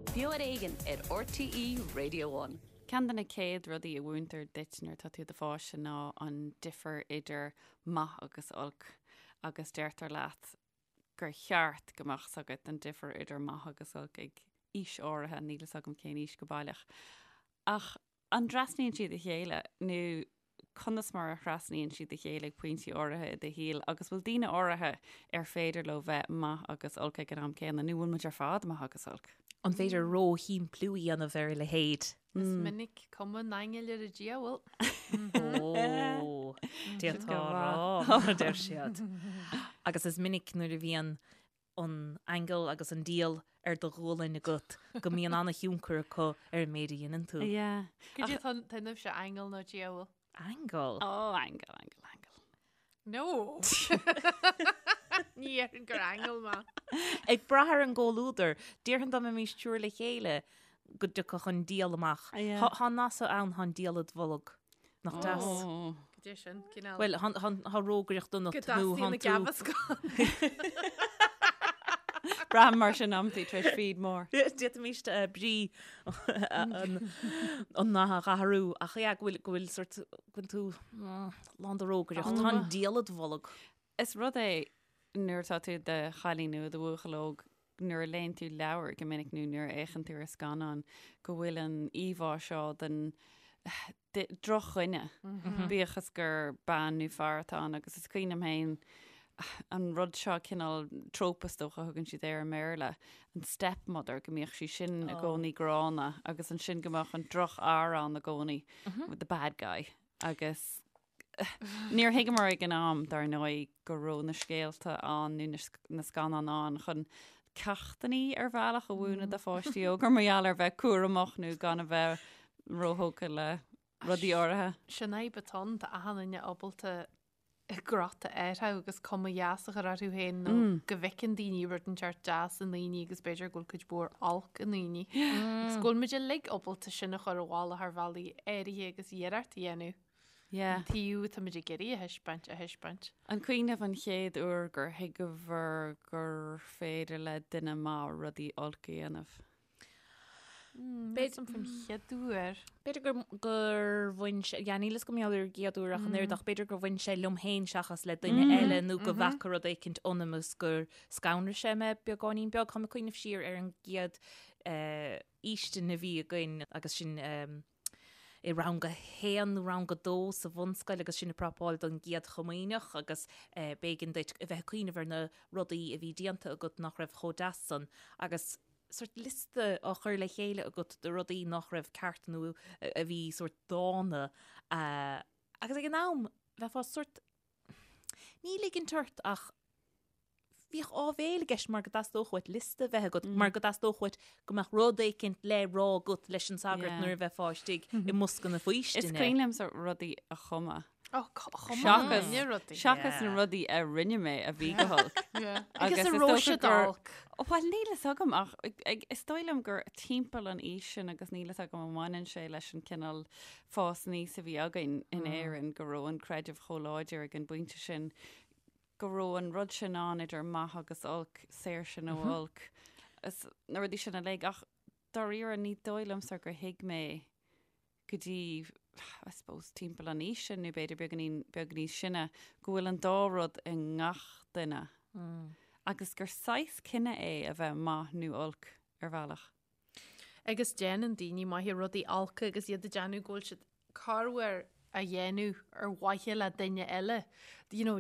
Beo ar Éigean ar RTÉ Radio One. Ceann de na chéad rudaí a mhúintear duit nuair atá tú i do pháiste ná an difear idir maith agus olc agus deirtear leat gur cheart go mbeadh 's agat an difear idir maith agus olc ag aois áirithe, níl 'fhios agam cén aois go baileach. Ach an dtrasnaíonn siad a chéile nó conas mar a thrasnaíonn siad a chéile ag pointí áirithe i do shaol agus bhfuil daoine áirithe ar féidir leo bheith maith agus olc ag an am céanna nó bhfuil muid ar fad maith agus olc? An féidir ró-shimpliú a dhéanamh ar a leithéid? Is minic cuma an aingil ar an diabhal. Ó, d'fhéadfá a rá, mar a deir siad. Agus is minic nuair a bhíonn an aingeal agus an diabhal ar do ghualainn agat go mbíonn an-thionchar acu ar an méid a dhéanann tú. Yeah. Cad é atá ionaibhse, aingeal nó diabhal? Aingeal? Ó, aingeal, aingeal, aingeal. No! Ní dhéarfainn gur aingeal mé. Ag brath ar an gcomhluadar, déarfainn dá mbeimis triúr le chéile go dtiocfadh an diabhal amach. Tá an nath so ann, tá an diabhal id bholg. Nach deas? Cad é sin, cineál. Bhuel, tá rógaireacht ionat nó tánn tú. Go dteastaíonn na Braithim mar sin amantaí tar éis feed mór. D'fhéadfaimis brí an nath a athrú ach yeah, go bhfuil go bhfuil sort go bhfuil tú lán de rógaireacht. Tá an diabhal id bholg. Is rud é nuair atá tú i do chailín nó i do bhuachaill óg nuair a léann tú leabhar go minic nó nuair a fhéachann tú ar scannán go bhfuil an íomhá seo den drochdhuine, bíodh is gur bean nó fear atá ann agus is cuimhin liom féin an rud seo cineál trope is dócha a thugann siad air i mBéarla, an stepmother, go mbíodh sí sin i gcónaí gránna agus ansin go mbeadh an drochfhear ann i gcónaí, the bad guy agus níor thuigeamar ag an am, dar ndóigh, go raibh na scéalta ann nó na scannáin ann chun ceachtanna ar bhealach a mhúineadh do pháistí óga mar gheall ar bheith cúramach nó gan a bheith róthógtha le rudaí áirithe. Sin fhadhb atá ann, tá achan duine ábalta crot a athrú agus cuma dheas a chur orthu féin nó go bhfeiceann daoine rud inteacht deas i ndaoine agus b'fhéidir go bhfuil cuid mhór olc i ndaoine. Agus go bhfuil muid uilig ábalta sin a chur i bhfolach ar bhealaí áirithe agus iarracht a dhéanamh. Yeah. An taobh atá muid ag iarraidh a thaispeáint, a thaispeáint. An cuimhin libh an chéad uair gur thuigeabhair gur féidir le duine maith rudaí olc a dhéanamh? B'fhéidir faoin chéad uair. B'fhéidir gur, gur bhain sé, yeah, níl 'fhios agam ar an gcéad uair ach an oiread ach b'fhéidir gur bhain sé liom féin seachas le duine eile nó go bhfaca rud éicint ionam is gur scanraigh sé mé beagáinín beag. Táim ag cuimhneamh siar ar an gcéad eh, fhaoistin a bhí againn agus sin eh, i rang a haon nó rang a dó sa bhunscoil agus sinn ag prapáil don gcéad chomaoineach agus eh, b'éigean duit a bheith ag cuimhneamh ar na rudaí a bhí déanta agat nach raibh chomh deas san agus sort liosta á chur le chéile agat de rudaí nach raibh ceart nó a bhí sort dána agus ag an am bheifeá sort ní ligint ort ach bhíodh áibhéil i gceist mar go dteastódh uait liosta a bheith agat mar go dteastódh uait go mbeadh rud éicint le rá agat leis an sagart nuair a bheifeá istigh i mbosca na faoistine. Is cuimhin liomsa rudaí a chumadh. Ó, chum duine rudaí. Seachas na rudaí a rinne mé a bhí go holc. Agus an raibh siad olc. Bhuel, níl fhios agam ach is dóigh liom gur timpeall an aois sin agus níl fhios agam an mbaineann sé leis an cineál fás aníos a bhí againn in Éirinn go raibh an creideamh chomh láidir ag an bpointe sin go raibh an rud sin ann idir maith agus olc, saoirse nó olc, is na rudaí sin uilig ach dáiríre ní dóigh liomsa gur thuig mé go dtí, I suppose, timpeall an aois sin nó b'fhéidir beagáinín beag níos sine, go bhfuil an dá rud i ngach duine agus gur saghas cinneadh é a bheith maith nó olc ar bhealach. Agus déanann daoine maithe rudaí olca agus iad ag déanamh go bhfuil siad corruair á dhéanamh ar mhaithe le duine eile. You know,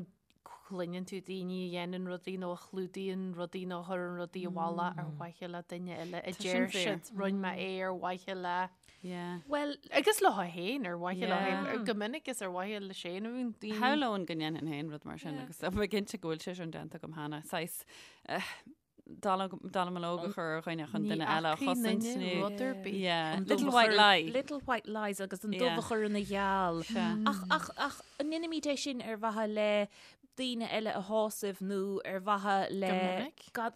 cluineann tú daoine a dhéanann rudaí nó a chlúdaíonn rudaí nó a chuireann rudaí i bhfolach ar mhaithe le duine eile a deir siad rinne mé é ar mhaithe le Yeah. Well, agus leo féin ar mhaithe leo féin go minic is ar mhaithe le féin a bhíonn daoine. Shamhlóinn go ndéanfainn féin rud mar sin agus tá mé cinnte go bhfuil sé sin déanta agam cheana. Saghas eh, dallamullóg a chur ar dhuine chun duine eile a chosaint nó rud ar bith. Yeah. Little white lie. Little white lies agus an dubh a chur ina gheal. Ach, ach, ach an ndéanaimid é sin ar mhaithe le daoine eile a shásamh nó ar mhaithe le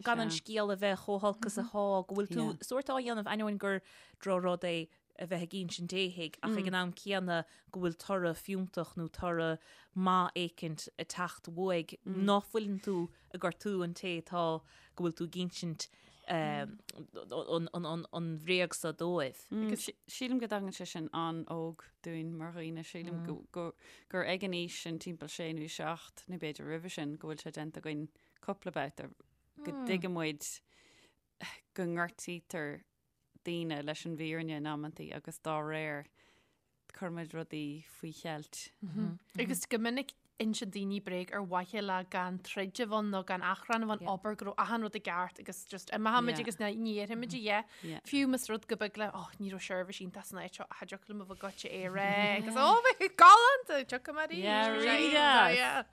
gan an scéal a bheith chomh holc is atá, go bhfuil tú sórt á dhéanamh ainneoin gur drochrud é a bheith ag insint éithigh ach ag an am céanna go bhfuil toradh fiúntach nó toradh maith éicint ag teacht uaidh, ná fuileann tú ag gortú an té atá go bhfuil tú ag insint. an bhréag so dóibh. Agus sílim go dtagann sé sin an-óg dúinn mar dhaoine, sílim gur ag an aois sin timpeall sé nó seacht nó b'fhéidir roimhe sin go bhfuil sé déanta againn cúpla babhta go dtuigeann muid go ngortaítear daoine leis an bhfírinne in amantaí agus dá réir cuirimid rudaí faoi cheilt. Agus go minic insíonn daoine bréag ar mhaithe le gan troid a bheith ann nó gan achrann a bheith ann, abair go raibh achan rud i gceart agus just imeochaimid agus ní dhéarfaimid a dhath. Fiú más rud go beag le oh ní raibh seirbhís iontach san áit seo ach thiocfadh liom a bheith goitse é a rá agus oh bheadh galánta tiocfaidh mé arís. Yeah, really deas.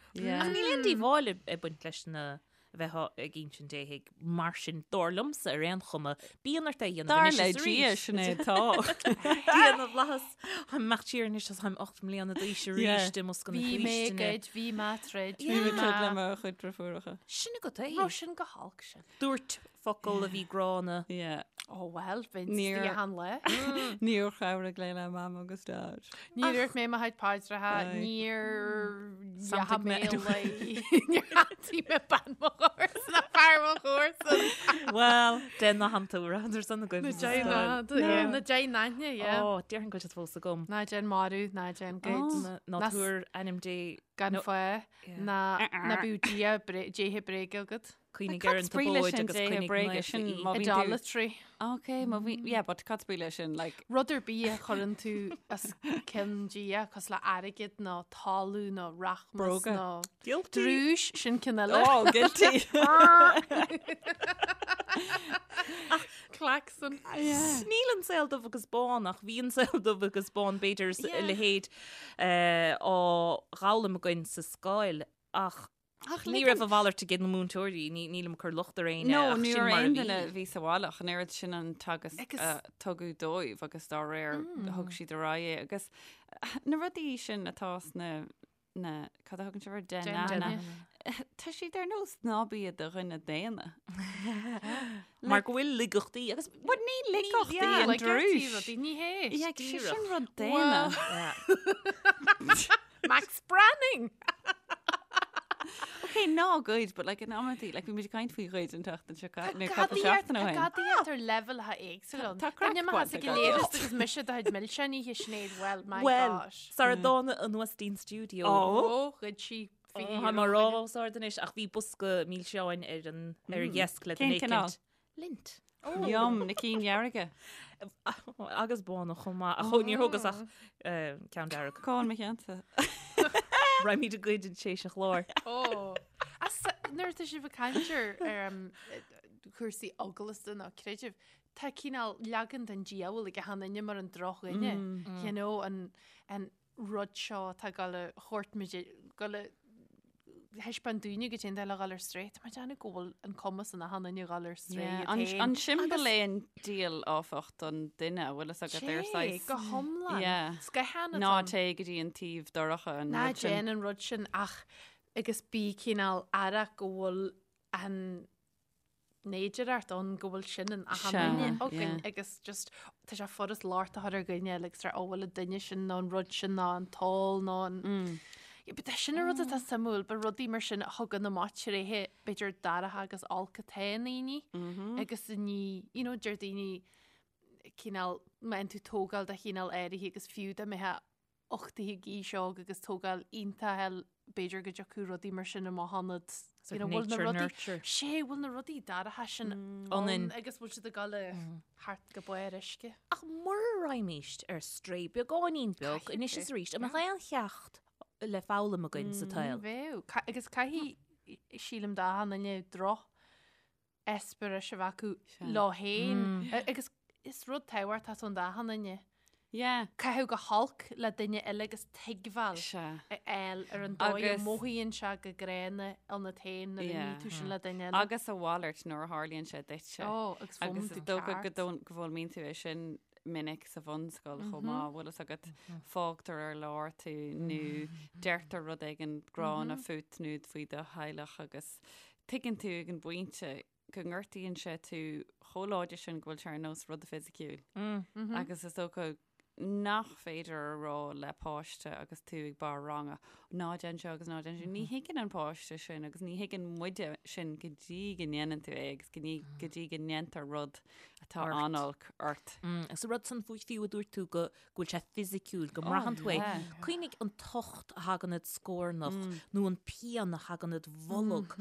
Ach níl aon díobháil ag baint leis na a bheith ag insint éithigh mar sin, dar liomsa ar aon chuma, bíonn ort é a dhéanamh Dar anois le is Dia, arís. sin é atá. Dia na bhFlaitheas, táim ag imeacht siar anois agus táim 8 mbliana d'aois arís Yeah. i mbosca na Bhí mé ag faoistine. goid, bhí mé ag troid, Bhí mé bhí ag troid le mé. mo chuid deirfiúracha. Sin agat é. Raibh sin go holc sin. Dúirt focal a bhí gránna. Yeah. Oh well, bheinn Níor- istigh achan lá. Níor chabhraigh mé le Mam agus Dad. Níor dhúirt mé mo chuid paidreacha, Aye. níor dheachaigh Santaigh mé mé. le níor shantaigh mé bean mo chomharsan ná fear mo chomharsan. Well, dein na hanta ar son agaibh. Na dein na, yeah, na dein aithne, yeah. Ó, déarfainn go bhfuil siad fós agam. Ná déan marú, ná déan goid. Ná Ná s- tabhair ainm Dé Gan No. fáth, ná ná bíodh Dia bré- Déithe bréige agat. Cuimhnigh Cad ar an is brí leis tSabóid sin agus Déithe coinnigh bréige naofa sin í. má bhíonn tú- Idolatry. Ok, má bhí, yeah, but cad is brí leis sin, like, Rud ar bith a chuireann tú os cionn Dia, cosúil le airgead nó talamh nó rachmas Bróga. nó Guilty. drúis, sin ceann eile. oh, guilty. Klaxon. Níl an saol dubh agus bán ach bhí an saol dubh agus bán b'fhéidir is a leithéid eh, á dh'fhoghlaim againn sa scoil ach Ach ní raibh a mhalairt ag na múinteoirí, ní nílim ag cur locht ar éinne No, ach ní sin raibh mar a aon bhí. duine a bhí sa bhaile ach an oiread sin an teagasc Agus- a tugadh dóibh agus dá réir thug siad ar aghaidh é agus na rudaí sin atá sna na cad a thugann sibh air? Deich Deich nAithne. Tá siad ar nós ná bí i do dhuine daonna. Mar go bhfuil laigeachtaí agus But ní laigeachtaí yeah, an Like drúis. rudaí, ní hé. Yeah, sé díreach. sin rud daonna. Max Branning! Ok, ná goid, but like in amantaí, like bhí muid ag caint faoi ghoid an tseachtain seo caite, nó cúpla seachtain ó shin. Tá gadaíocht ar leibhéalacha éagsúla ann. Tá craic Duine maith bainte ag agat. léireas agus mise do chuid milseáin oíche Sinéad, well, my Well, gosh. sara dtána anuas dtí'n stiúideo. Ó, ghoid sí Tá mé ag rá os ard anois ach bhí bosca milseáin ar an ar an dheasc le Cén duine cineál? éicint. Lindt. Yum, na cinn dhearga. Agus bána chomh maith. Ach níor thógas ach ceann dearg. Cá bhfuil mo cheannsa? Raghaimid ag goid tar éis an chláir. Ó. As nuair atá sibh ag caint ar ar, um, cúrsaí eaglasta nó creidimh, tá cineál leagan den diabhal ag achan duine mar an drochdhuine. You know, an, an rud seo atá ag dul a thabhairt muid, dul a thaispeáint dúinne goidé an dóigh le dhul ar strae. Tá mé ag déanamh go bhfuil an cumas in achan duine dhul ar strae Yeah, iad An, féin. an siombail é an diabhal áfach don duine, a bhfuil fhios agat ar Sé, saghas. go hiomlán. Yeah. Scáthán atá Ná ann. téigh go dtí an taobh dorcha an Ná rud sin. déan an rud sin ach agus bí cineál aireach go bhfuil an fhéidearthacht ann go bhfuil sin in achan Sea, duine againn yeah. agus just tá sé furast locht a chur ar dhuine eile agus rá ó bhfuil an duine sin nó an rud sin nó an t-ól nó an Mm. Yeah, but sin an rud atá suimiúil, ba rudaí mar sin a thugann amach tréithe b'fhéidir dorcha agus olc atá i ndaoine Mm-hmm. agus ní, you know, deir daoine cineál má fhaigheann tú tógáil de chineál áirithe agus fiú dá mbeifeá uchtaithe ag aois óg agus tógáil iontach eil, b'fhéidir go dtiocfadh rudaí mar sin amach ionat. Sort You know, bhfuil na nature rudaí- nurture. Sé, bhfuil na rudaí dorcha sin Ionainn. ann agus bhfuil siad ag dul thart go barr uisce. Ach mura raghaimíst ar strae beagáinín beag Caithfidh anois tú, is arís, an mbeadh aon cheacht le foghlaim againn sa tsaol? Bheadh. Ca- Agus caithfidh, sílim d'achan duine droch eispéiris a bheith acu leo féin. Agus is rud tábhachtach ann d'achan duine. Yeah. Caitheamh go holc le duine eile agus tuigbheáil Sea. a fháil ar an dóigh a Agus- mothaíonn sé go gránna ionat féin nuair a Yeah. ní tú sin le duine eile. Agus a mhalairt nuair a tharlaíonn sé duitse. Ó, agus Agus foghlaim is tú dócha go ceart. dón- go bhfoghlaimíonn tú é sin minic sa bhunscoil chomh maith, bhfuil fhios agat, fágtar ar lár tú nó deirtear rud éigin gránna fút nó faoi do theaghlach agus tuigeann tú ag an bpointe go ngortaíonn sé tú chomh láidir sin go bhfuil sé ar nós rud fisiciúil. Agus is dócha. nach féidir a rá le páiste agus tú ag barr ranga, ná déan seo agus ná déan sin. Ní thuigeann an páiste sin agus ní thuigeann muide sin go dtí go ndéanann tú é agus go dtí go ndéantar rud atá an-olc ort. Agus an rud san fiú a dúirt tú go go bhfuil sé fisiciúil, go mbraitheann tú é. Cuimhnigh an tocht a thagann id scornach nó an pian a thagann id bholg.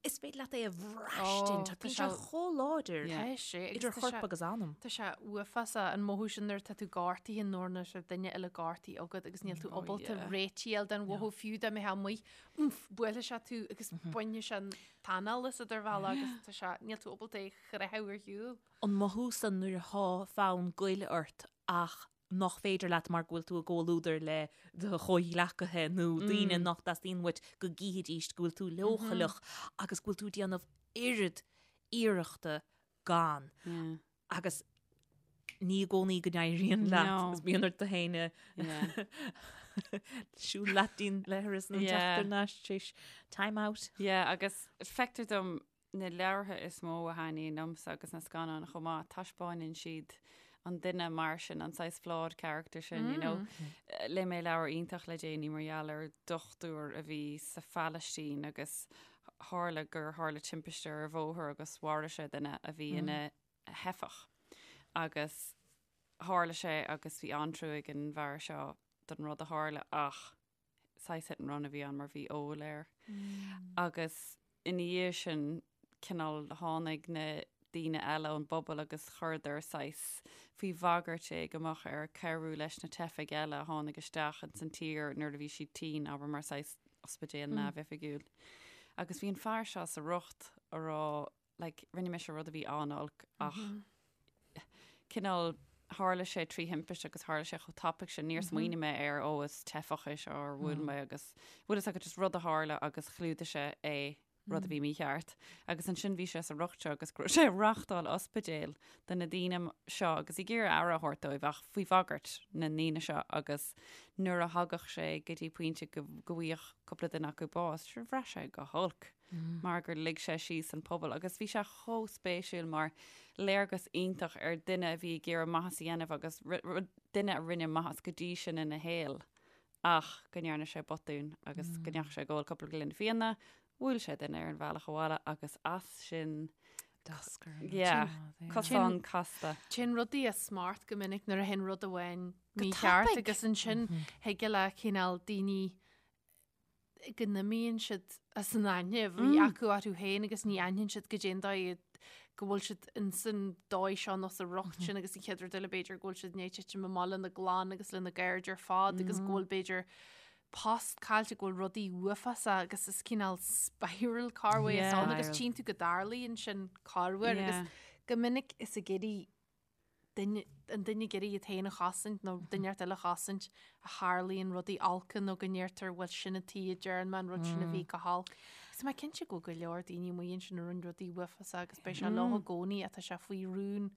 Is féidir leat é a bhraistint. Tá sé chomh láidir idir chorp agus anam. Tá sé uafásach an mothú sin nuair atá tú gortaithe nó nuair atá duine eile gortaithe agat agus níl tú ábalta réiteach a fháil den mhothú fiú dá mbeifeá amuigh, oomph, buailfidh sé tú agus bainfidh sé an t-anáil asat ar bhealach agus tá sé, níl tú ábalta é a chroitheadh ar shiúl. An mothú san nuair atá fonn goil ort ach nach féidir leat mar go bhfuil tú i gcomhluadar le do chomhghleacaithe nó daoine nach dteastaíonn uait go gcífidís go bhfuil tú leochaileach agus go bhfuil tú ag déanamh oiread iarrachta gan. Agus ní i gcónaí go n-éiríonn leat agus bíonn ort tú féin a siúl leat dtí'n leithreas nó teacht thar n-ais tar éis time out. Yeah, agus feictear dom Na leabhartha is mó a thaitníonn liomsa agus na scannáin chomh maith, taispeáineann siad an duine mar sin, an saghas flawed character sin, you know. Léigh mé leabhar iontach le déanaí mar gheall ar dochtúir a bhí sa Phalaistín agus tharla gur tharla timpiste ar bhóthar agus mharaigh sé duine a bhí ina theifeach. Agus tharla sé agus bhí an-trua ag an bhfear seo don rud a tharla ach saghas hit and run a bhí ann mar bhí ól air. Agus ina dhiaidh sin cineál tháinig na daoine eile ón bpobal agus chuireadar saghas faoi bhagairt é go mbeadh air cabhrú leis na teifigh eile a tháinig isteach ins an tír nuair a bhí siad tinn, abair mar saghas ospidéal neamhoifigiúil. Agus bhí an fear seo sa riocht a rá like, rinne mise rud a bhí an-olc ach cineál tharla sé trí thimpiste agus tharla sé chomh tapaidh sin, níor smaoinigh mé air, ó is teifeach é seo ar bhuail mé agus bhfuil fhios agat just rud a tharla agus chlúdaigh sé é rud a bhí mícheart. Agus ansin bhí sé sa riocht seo agus go raibh sé ag reáchtáil ospidéil do na daoine seo agus ag iarraidh aire a thabhairt dóibh ach faoi bhagairt na ndaoine seo agus nuair a thagadh sé go dtí pointe go go bhfaigheadh cúpla duine acu bás, sure bhraith sé go holc. mar gur lig sé síos an pobal agus bhí sé chomh spéisiúil mar léargas iontach ar duine a bhí ag iarraidh maitheas a dhéanamh agus duine a rinne maitheas go dtí sin ina shaol ach go ndearna sé botún agus go ndeachaigh sé ag ól cúpla gloine fíona, bhuail sé duine ar an bhealach abhaile agus as sin Yeah, cosán casta. Téann rudaí as smacht go minic nuair a théann rud amháin mícheart agus ansin thig le cineál daoine go n-imíonn siad as an aithne a bhí acu orthu féin agus ní aithníonn siad goidé an dóigh go bhfuil siad ins an dóigh seo nó sa riocht sin agus an chéad rud eile b'fhéidir go bhfuil siad i ndiaidh titim amach lena gclann agus lena gcairde ar fad agus go bhfuil b'fhéidir post caillte, go bhfuil rudaí uafásacha agus is cineál spiral corruair atá ann agus tchíonn tú go dtarlaíonn sin corruair agus go minic is ag iarraidh duine, an duine ag iarraidh iad féin a chosaint nó duine inteacht eile a chosaint a tharlaíonn rudaí olca nó go ndeirtear bhuel sin an tuige a ndearna mé an rud sin a bhí go holc. Agus tá mé cinnte go bhfuil go leor daoine amuigh ansin a rinne rudaí uafásacha agus beidh sé leo i gcónaí ach tá sé faoi rún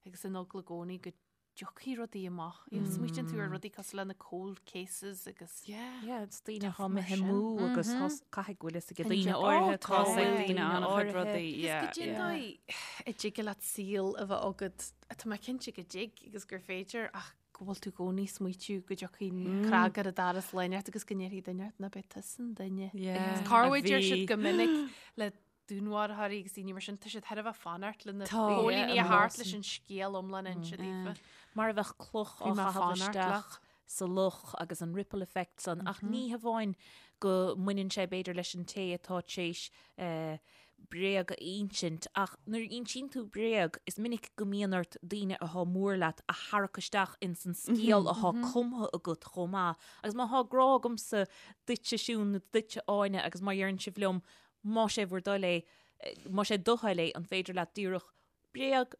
agus in eagla i gcónaí go dtiocfaidh rudaí amach. You know, smaoitíonn tú ar rudaí cosúil le na cold cases agus Yeah. Yeah, it's daoine atá imithe amú agus caithfidh go bhfuil fhios ag daoine áirithe Tá ag daoine an-chuid rudaí, yeah. Agus goidé an dóigh a dtig leat saol a bheith agat, tá mé cinnte go dtig agus gur féidir ach go bhfuil tú i gcónaí ag smaoitiú go dtiocfaidh cnag ar an doras lá inteacht agus go ndéarfaidh duine ort nach b'é tusa an duine. Yeah, Corruair deir siad go minic le dúnmharfóirí agus daoine mar sin, tá siad thar a bheith fanacht le na póilíní a theacht leis an scéal iomlán a inse daofa. Mar a bheadh cloch á chaitheamh isteach sa loch agus an ripple effect san, ach ní hamháin go mbaineann sé b'fhéidir leis an té atá tar éis bréag a insint, ach nuair a insíonn tú bréag, is minic go mbíonn ort daoine atá mór leat a tharrac isteach ins an scéal atá cumtha agat chomh maith. Agus má thá grá agamsa duitse Siún nó duitse Áine agus má dheireann sibh liom más é bhur dtoil é, más é do thoil é, an féidir leat díreach bréag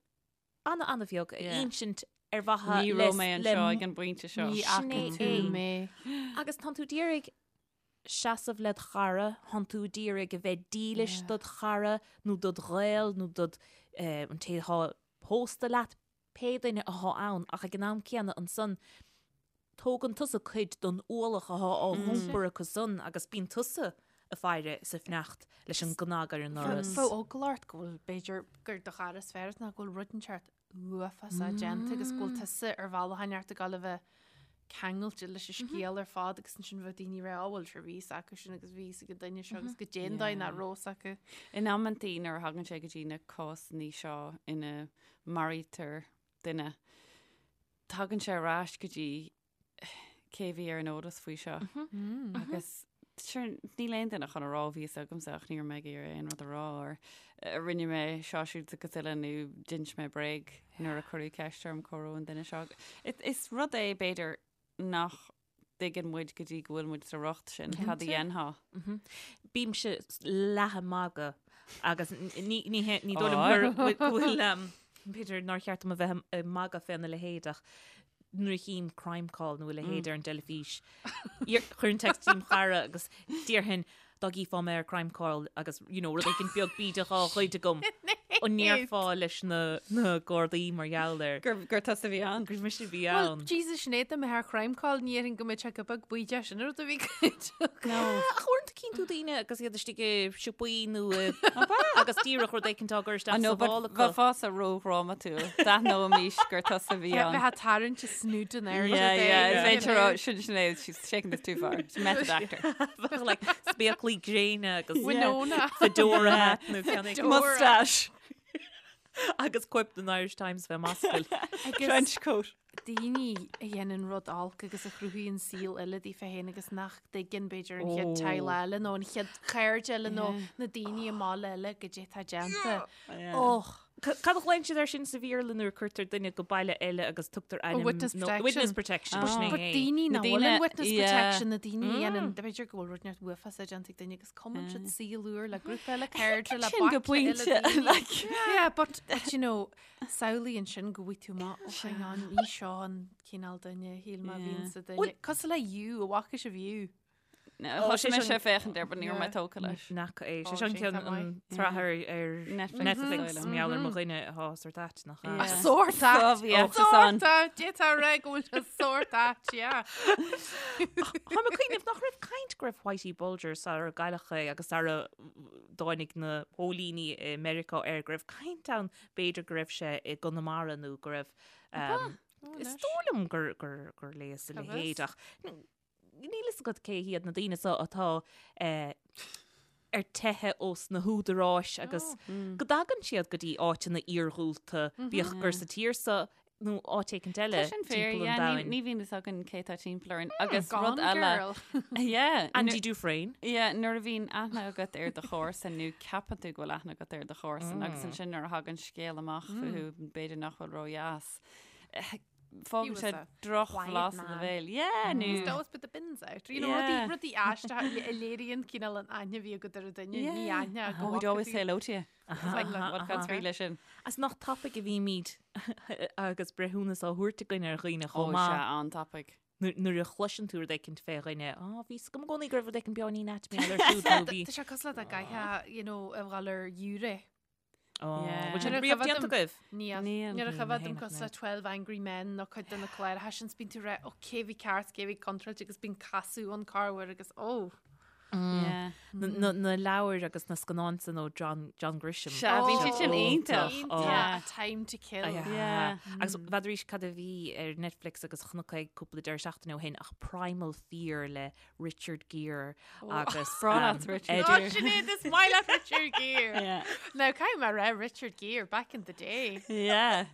ana-ana-bheag a insint ar mhaithe le... Ní raibh mé anseo ag an bpointe seo. Ní fhaca tú mé. Agus tánn tú d'iarraidh seasamh led chara, tánn tú d'iarraidh a bheith dílis dod chara nó dod ghaol nó dod an té atá pósta leat, pé duine athá ann ach ag an am céanna ansan tógann tusa cuid don ualach athá á iompar acu san agus bíonn tusa ag faire sa fhneacht leis an gcnag ar an ndoras. Bheadh eagla ort go bhfuil, b'fhéidir, gur do chara is fearr nó go bhfuil rud inteacht. uafásach déanta agus go bhfuil tusa ar bhealach inteacht ag gabháil a bheith ceangailte leis an scéal ar fad agus ansin bheadh daoine ag rá "Á, bhuel sure bhí fhios acu sin agus bhí fhios ag an duine seo agus goidé an dóigh nach raibh fhios acu. In amantaí nuair a thagann sé go dtí na cásanna seo ina maraítear duine, tagann sé ar ais go dtí cé a bhí ar an eolas faoi seo. Agus sure, níl aon duine chun a rá bhí fhios agamsa ach ní raibh mé ag iarraidh aon rud a rá or eh, rinne mé seo siúd agus uile nó d'inis mé bréag nuair a cuireadh ceist orm cá raibh an duine seo. Is rud é b'fhéidir nach dtuigeann muid go dtí go bhfuil muid sa riocht sin, cad a dhéanfá? Bímse leath ag magadh agus ní ní hé- ní dóigh liom gur go bhfuil um, b'fhéidir nár cheart dom a bheith ag magadh féna leithéid ach nuair a chím Crimecall nó a leithéid ar an dteilifís, chuirfinn text dom chara agus déarfainn dá gcífeá mé ar Crimecall agus you know, rud éigin beag bídeach á ghoid agam an ndéarfá leis na, na Gardaí mar gheall air. Gur, gur tusa a bhí ann. Gur mise a bhí Well, ann. Jesus, Sinéad, dá mbeifeá ar Crimecall, ní dhéarfainn go mbeadh sé go beag bídeach sin an rud a bhí goidte. No. Ach uaireanta cíonn tú daoine agus iad istigh i siopaí nó i agus díreach rud éicint á gcur isteach sa mhála acu. Bheifeása ródhrámatúil. D'aithneoimis gur tusa a bhí ann. Bheifeá ag tarraingt a snúd in airde. Yeah, yeah, is féidir rá, sin Sinéad, she's taking this too far. She's a method actor. Bheadh like spéaclaí gréine agus Winona. fedora hat nó ceann éigin. Mustache. Agus cóip den Irish Times fé m'ascaill. Trench coat. daoine a dhéanann rud olc agus a chruthaíonn saol eile daofa féin agus nach dtuigeann b'fhéidir an chéad teaghlach eile nó an chéad chairde eile nó na daoine i mbaile eile goidé atá déanta. Och! Cad a ghlaonn siad air sin sa Bhéarla nuair a cuirtear duine go baile eile agus tugtar ainm witness protection. Witness protection. Sin But é. daoine Na nach bhfuil daoine- in witness yeah. protection, na daoine a dhéanann, b'fhéidir go bhfuil rud inteacht uafásach déanta ag duine agus cumann siad saol úr le grúpa eile cairde le Sin go baicle eile pointe, daoine. like. Yeah, but, but you know, Samhlaigh ansin go bhfaighidh tú amach, oh hang on, ní seo an cineál duine a shíl mé a bhíonn sa duine. Cosúil le You, an bhfaca sibh You? Thosaigh mise ag féachaint air, but ní raibh mé tógtha leis. Nach é. Ó, Sé sin sin ceann tá maith. an tsraith ar ar Netflix, Netflix is dóigh liom. mar gheall ar mo dhuine atá sórt ait nach ea? Yeah. Sórt ait! Bhí fhios ann. Sórt ait! D'fhéadfá a rá go bhfuil sé sórt ait, yeah. Táim ag cuimhneamh nach raibh caint go raibh Whitey Bulger sara gcailleadh é agus sara dtáinig na póilíní i Meiriceá air go raibh caint ann B'fhéidir go raibh sé i gConamara nó go raibh Is dóigh liom gur gur gur léas a leithéid ach níl fhios agat cé hiad na daoine seo atá ar teitheadh ós na húdaráis agus go dtagann siad go dtí áiteanna iargúlta, bíodh gur sa tír seo nó áit éicint eile Tá sin fíor, timpeall an yeah, ní domhain. ní bhíonn fhios againn cé tá timpeall orainn agus Gone rud eile. Girl. Yeah, Andy Dufresne. Yeah, nuair a bhíonn aithne agat ar do chomharsan nó ceapann tú go bhfuil aithne agat ar do chomharsan agus ansin nuair a thagann scéal amach fúthu b'fhéidir nach bhfuil ródheas. He Fágann was sé a drochbhlas quiet i do man. bhéal. Yeah, nó He'd always put the bins out. You know, Yeah. rudaí rudaí aisteacha a léiríonn cineál an aithne a bhí agat ar an duine, ní Yeah. aithne go Oh, he'd bhfaca always tú. say hello to you. It's like, what cad faoi leis sin? Is nach tapaidh a bhímid agus breithiúnas á thabhairt againn ar dhaoine Ó, chomh maith. sea, an-tapaidh. Nuair a chloiseann tú rud éicint fé dhuine, á, bhí fhios agam i gcónaí go raibh rud éicint beagáinín ait mar gheall air siúd nó bhí. Tá sé cosúil le dá gcaithfeá, you know, a ghabháil ar ghiúiré. Ó, Yeah. bhfuil sin Nuair a riamh chuimhin déanta dom- agaibh? Níl. Níl. Nuair a Níl, chuimhin mé dom féin cosúil le ach 12 Angry Men nó cuid de na cláracha sin, bíonn tú ag rá, ó, cé bhí ceart, cé bhí contráilte agus bíonn casadh an corruair agus ó. Yeah. Na na leabhair agus na scannáin san ó John John Grisham. Sea, bhí siad sin iontach. Iontach. Yeah. A Time to Kill. Yeah. Agus n'fheadar arís cad a bhí ar Netflix agus chonac é cúpla deireadh seachtaine ó shin ach Primal Fear le Richard Gere agus Breá leat Richard Ed- Oh, Gere. Sinéad, is maith leat Richard Gere. Yeah. Now, caithfidh mé a rá Richard Gere back in the day. Yeah.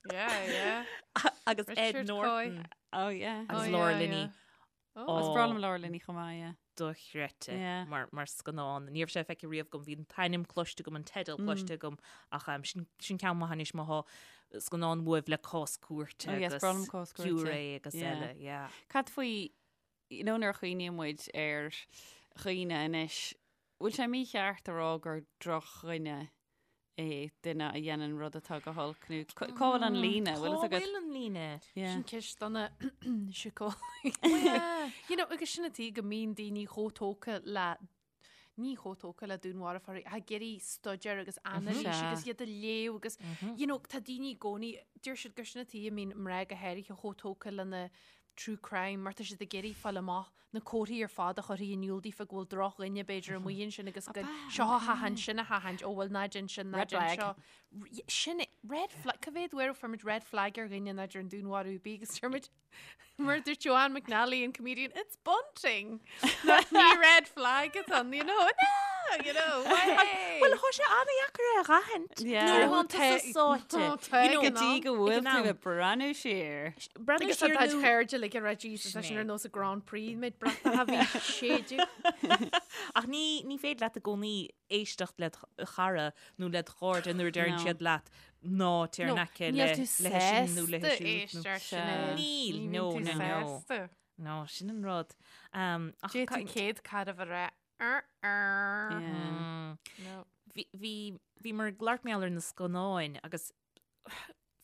Yeah, yeah. agus Ed Richard Norton Oh yeah. agus Oh, Laura yeah, Linney. yeah. Oh. Is breá liom Laura Linney chomh maith, yeah. Dochreidte Yeah. mar, mar scannán. Ní raibh sé feicthe riamh agam, bhí an t-ainm cloiste agam, an teideal cloiste agam, ach um, sin, sin ceann maith anois má thá scannán uaibh le cás cúirte Oh, yes, agus breá liom cás cúirte. giúiré agus Yeah. eile, yeah. Cad faoi, you know, nuair a chuimhníonn muid ar dhaoine anois, bhfuil sé mícheart a rá gur drochdhuine é duine a dhéanann rud atá go holc nó cá bhfuil an líne, bhfuil Cá fhios agat? bhfuil an líne? Yeah. Sin ceist do na síceolaithe. You know, agus sin an tuige go mbíonn daoine chomh tógtha le ní chomh tógtha le dúnmharfóirí, ach ag iarraidh staidéar agus anailís Sea. agus iad a léamh agus, you know, tá daoine i gcónaí, deir siad gur sin an tuige a mbíonn mná go háirithe chomh tógtha lena. true crime mar tá siad ag iarraidh fáil amach na comharthaí ar fad a chuirfidh in iúl daofa go bhfuil drochdhuine b'fhéidir amuigh ansin agus go seo a thathaint, sin a thathaint, ó bhuel ná déan sin, ná déan seo. Sin é, red flag, cá mhéad uair a fuair muid red flag ar dhuine ná ar an dúnmharú ar bith agus deir muid, mar a dúirt Joanne McNally, an comedian, it's bunting! Ní red flag atá ann, you know, no, you know, Bhuel, tá sé an-dheacair é a dh'aithint. Nuair atá tusa sáite. You know, go dtí go bhfuil tú ag breathnú siar. Breathnú Agus tá siar do nó... chairde like ag rá Jesus, tá sin ar nós an Grand Prix, méid bratacha bhí séideadh. Ach ní, ní féidir leat i gcónaí éisteacht led chara nó led chairde nuair a deireann No. siad leat ná téir in aice Níl le tú le sin nó le sásta siúd nó- éisteacht Sea. Sinéad. Níl, Ní no, bhíonn tú no, no. sásta. No, sin an rud. Um, ach D'fhéadfadh céad cara a rá, "Er, er." Yeah. Mm. No. Bhí, bhí, bhíomar ag labhairt mar gheall ar na scannáin agus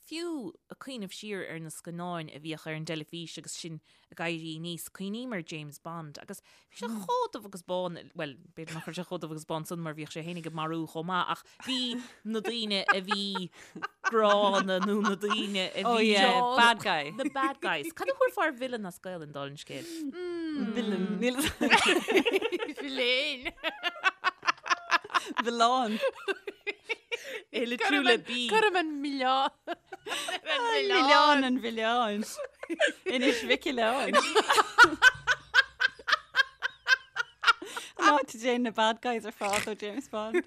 fiú ag cuimhneamh siar ar na scannáin a bhíodh ar an dteilifís agus sinn ag éirí aníos, cuimhním ar James Bond agus bhí sé chomh dubh agus bán, bhuel, b'fhéidir nach raibh sé chomh dubh agus bán san mar bhíodh sé fhéinig ag marú chomh maith ach bhí na daoine a bhí gránna nó na daoine a Oh bhí yeah, bad guy. The bad guys. Cad a thabharfá ar villain as Gaelainn dála an scéil? Villain. Níl Villain. Villain. É litriú le B. Cuirim an milleán. Milleán an mhilleáin. Inis Mhic Oileáin. An áit a dtéann na bad guys ar fad ó James Bond.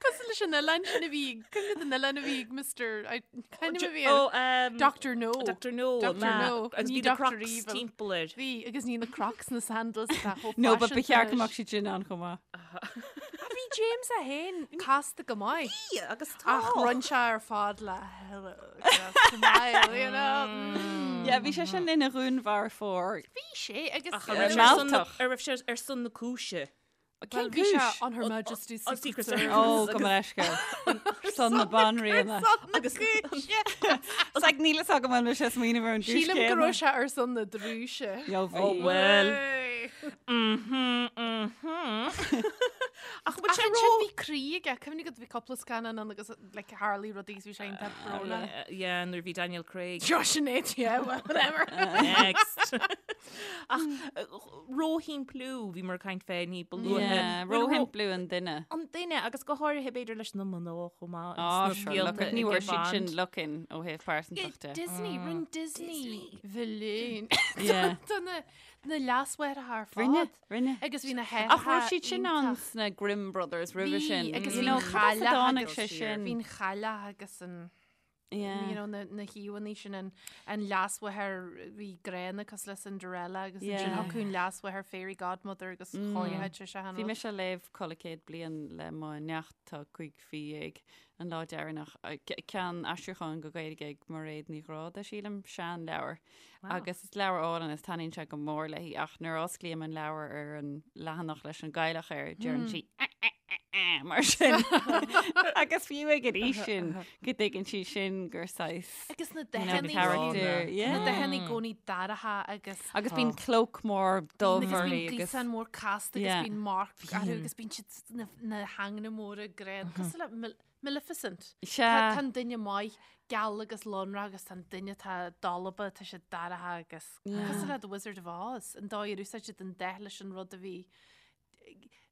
Cosúil leis an oileán sin a bhí, cuimhnigh den oileán a bhí ag Mr. I- Kind of a bhí Oh, um, Dr. No. Dr. No. Dr. ma- No. Agus Ní bhí na Dr. Crocs Evil. timpeall air. Bhí, agus ní na Crocs na sandals atá chomh No, but ba faiseanta cheart go anois. mbeadh siad sin ann chomh maith. Bhí James é féin casta go maith. Bhí, agus tá. Ach rinne sé ar fad le hello, smile, you know. Mm. Yeah, bhí sé sin ina dhúnmharfóir. Bhí sé agus Ach an raibh sé ar son na- Mealltach. ar raibh sé ar son na cúise. Well, Cén bhí sé cúis? on Her Majesty's on Secret Secret Service. Ó, gabh mo leithscéal. Son na banríona. Agus It's like níl a fhios agam an bhfuil sé smaoineamh ar an gcúis Sílim go céanna. raibh sé ar son na drúise. Yo, bhí. Oh, well. Hey. Mhm, mhm. Ach bhfuil Ach sé ansin ró... bhí croí aige, cuimhnigh go bhí cúpla scannán ann agus like, tharla rudaí bhí sé iontach brónach. Yeah, nuair a bhí Daniel Craig. Sure, Sinéad, yeah, well, whatever. Next. Ach róshimpliú bhíomar ag caint fé ní ba luaithe. Yeah, Bhfuil ró- róshimpliú an duine. An duine agus go háirithe b'fhéidir leis na mná chomh maith. Á, sna sure, scéalta look, ní ag bhfuair siad sin Bond. look-in ó thaobh pearsantachta. Disney, rinne Disney. Villain. Yeah. Tá na na leasmháithreacha ar fad. Rinne, rinne. Agus bhí na haithreacha Ach raibh siad sin ann iontach. sna Grimm Brothers roimhe Bhí, sin. agus You bhí know, an cad as a chailleach dtáinig agus- sé sin? Bhí an chailleach agus an Yeah. you know, na, na híomhánna sin an, an leasmháthair bhí gránna cosúil le Cinderella agus Yeah. ansin thiocfadh an leasmháthair Fairy Godmother agus chóirithe sé se Bhí mise ag léamh Codladh Céad Bliain le mo neacht tá 15 an lá deireanach. Ceann aistriúcháin go Gaeilge ag Mairéad Ní Ghráda, sílim, seanleabhar. Agus is leabhar álainn is taitníonn sé go mór léi ach nuair a osclaím an leabhar ar an leathanach leis an gcailleach air, deireann sí "Eh, eh, eh, eh," mar sin. Agus fiú ag an aois sin go dtuigeann sí sin gur saghas Agus na you know, dathanna character. na Yeah. dathanna i gcónaí dorcha agus Agus bíonn cloak mór dubh agus bíonn uirthi agus gríosán mór casta agus Yeah. bíonn marc orthu agus bíonn siad na, na hanganna móra gránna cosúil le Mil- Maleficent. Sea. Tá an duine maith geal agus lonrach agus tá an duine atá dalba, tá sé dorcha agus cosúil le The Wizard of Oz, an dóigh ar úsáid siad an dath leis an rud a bhí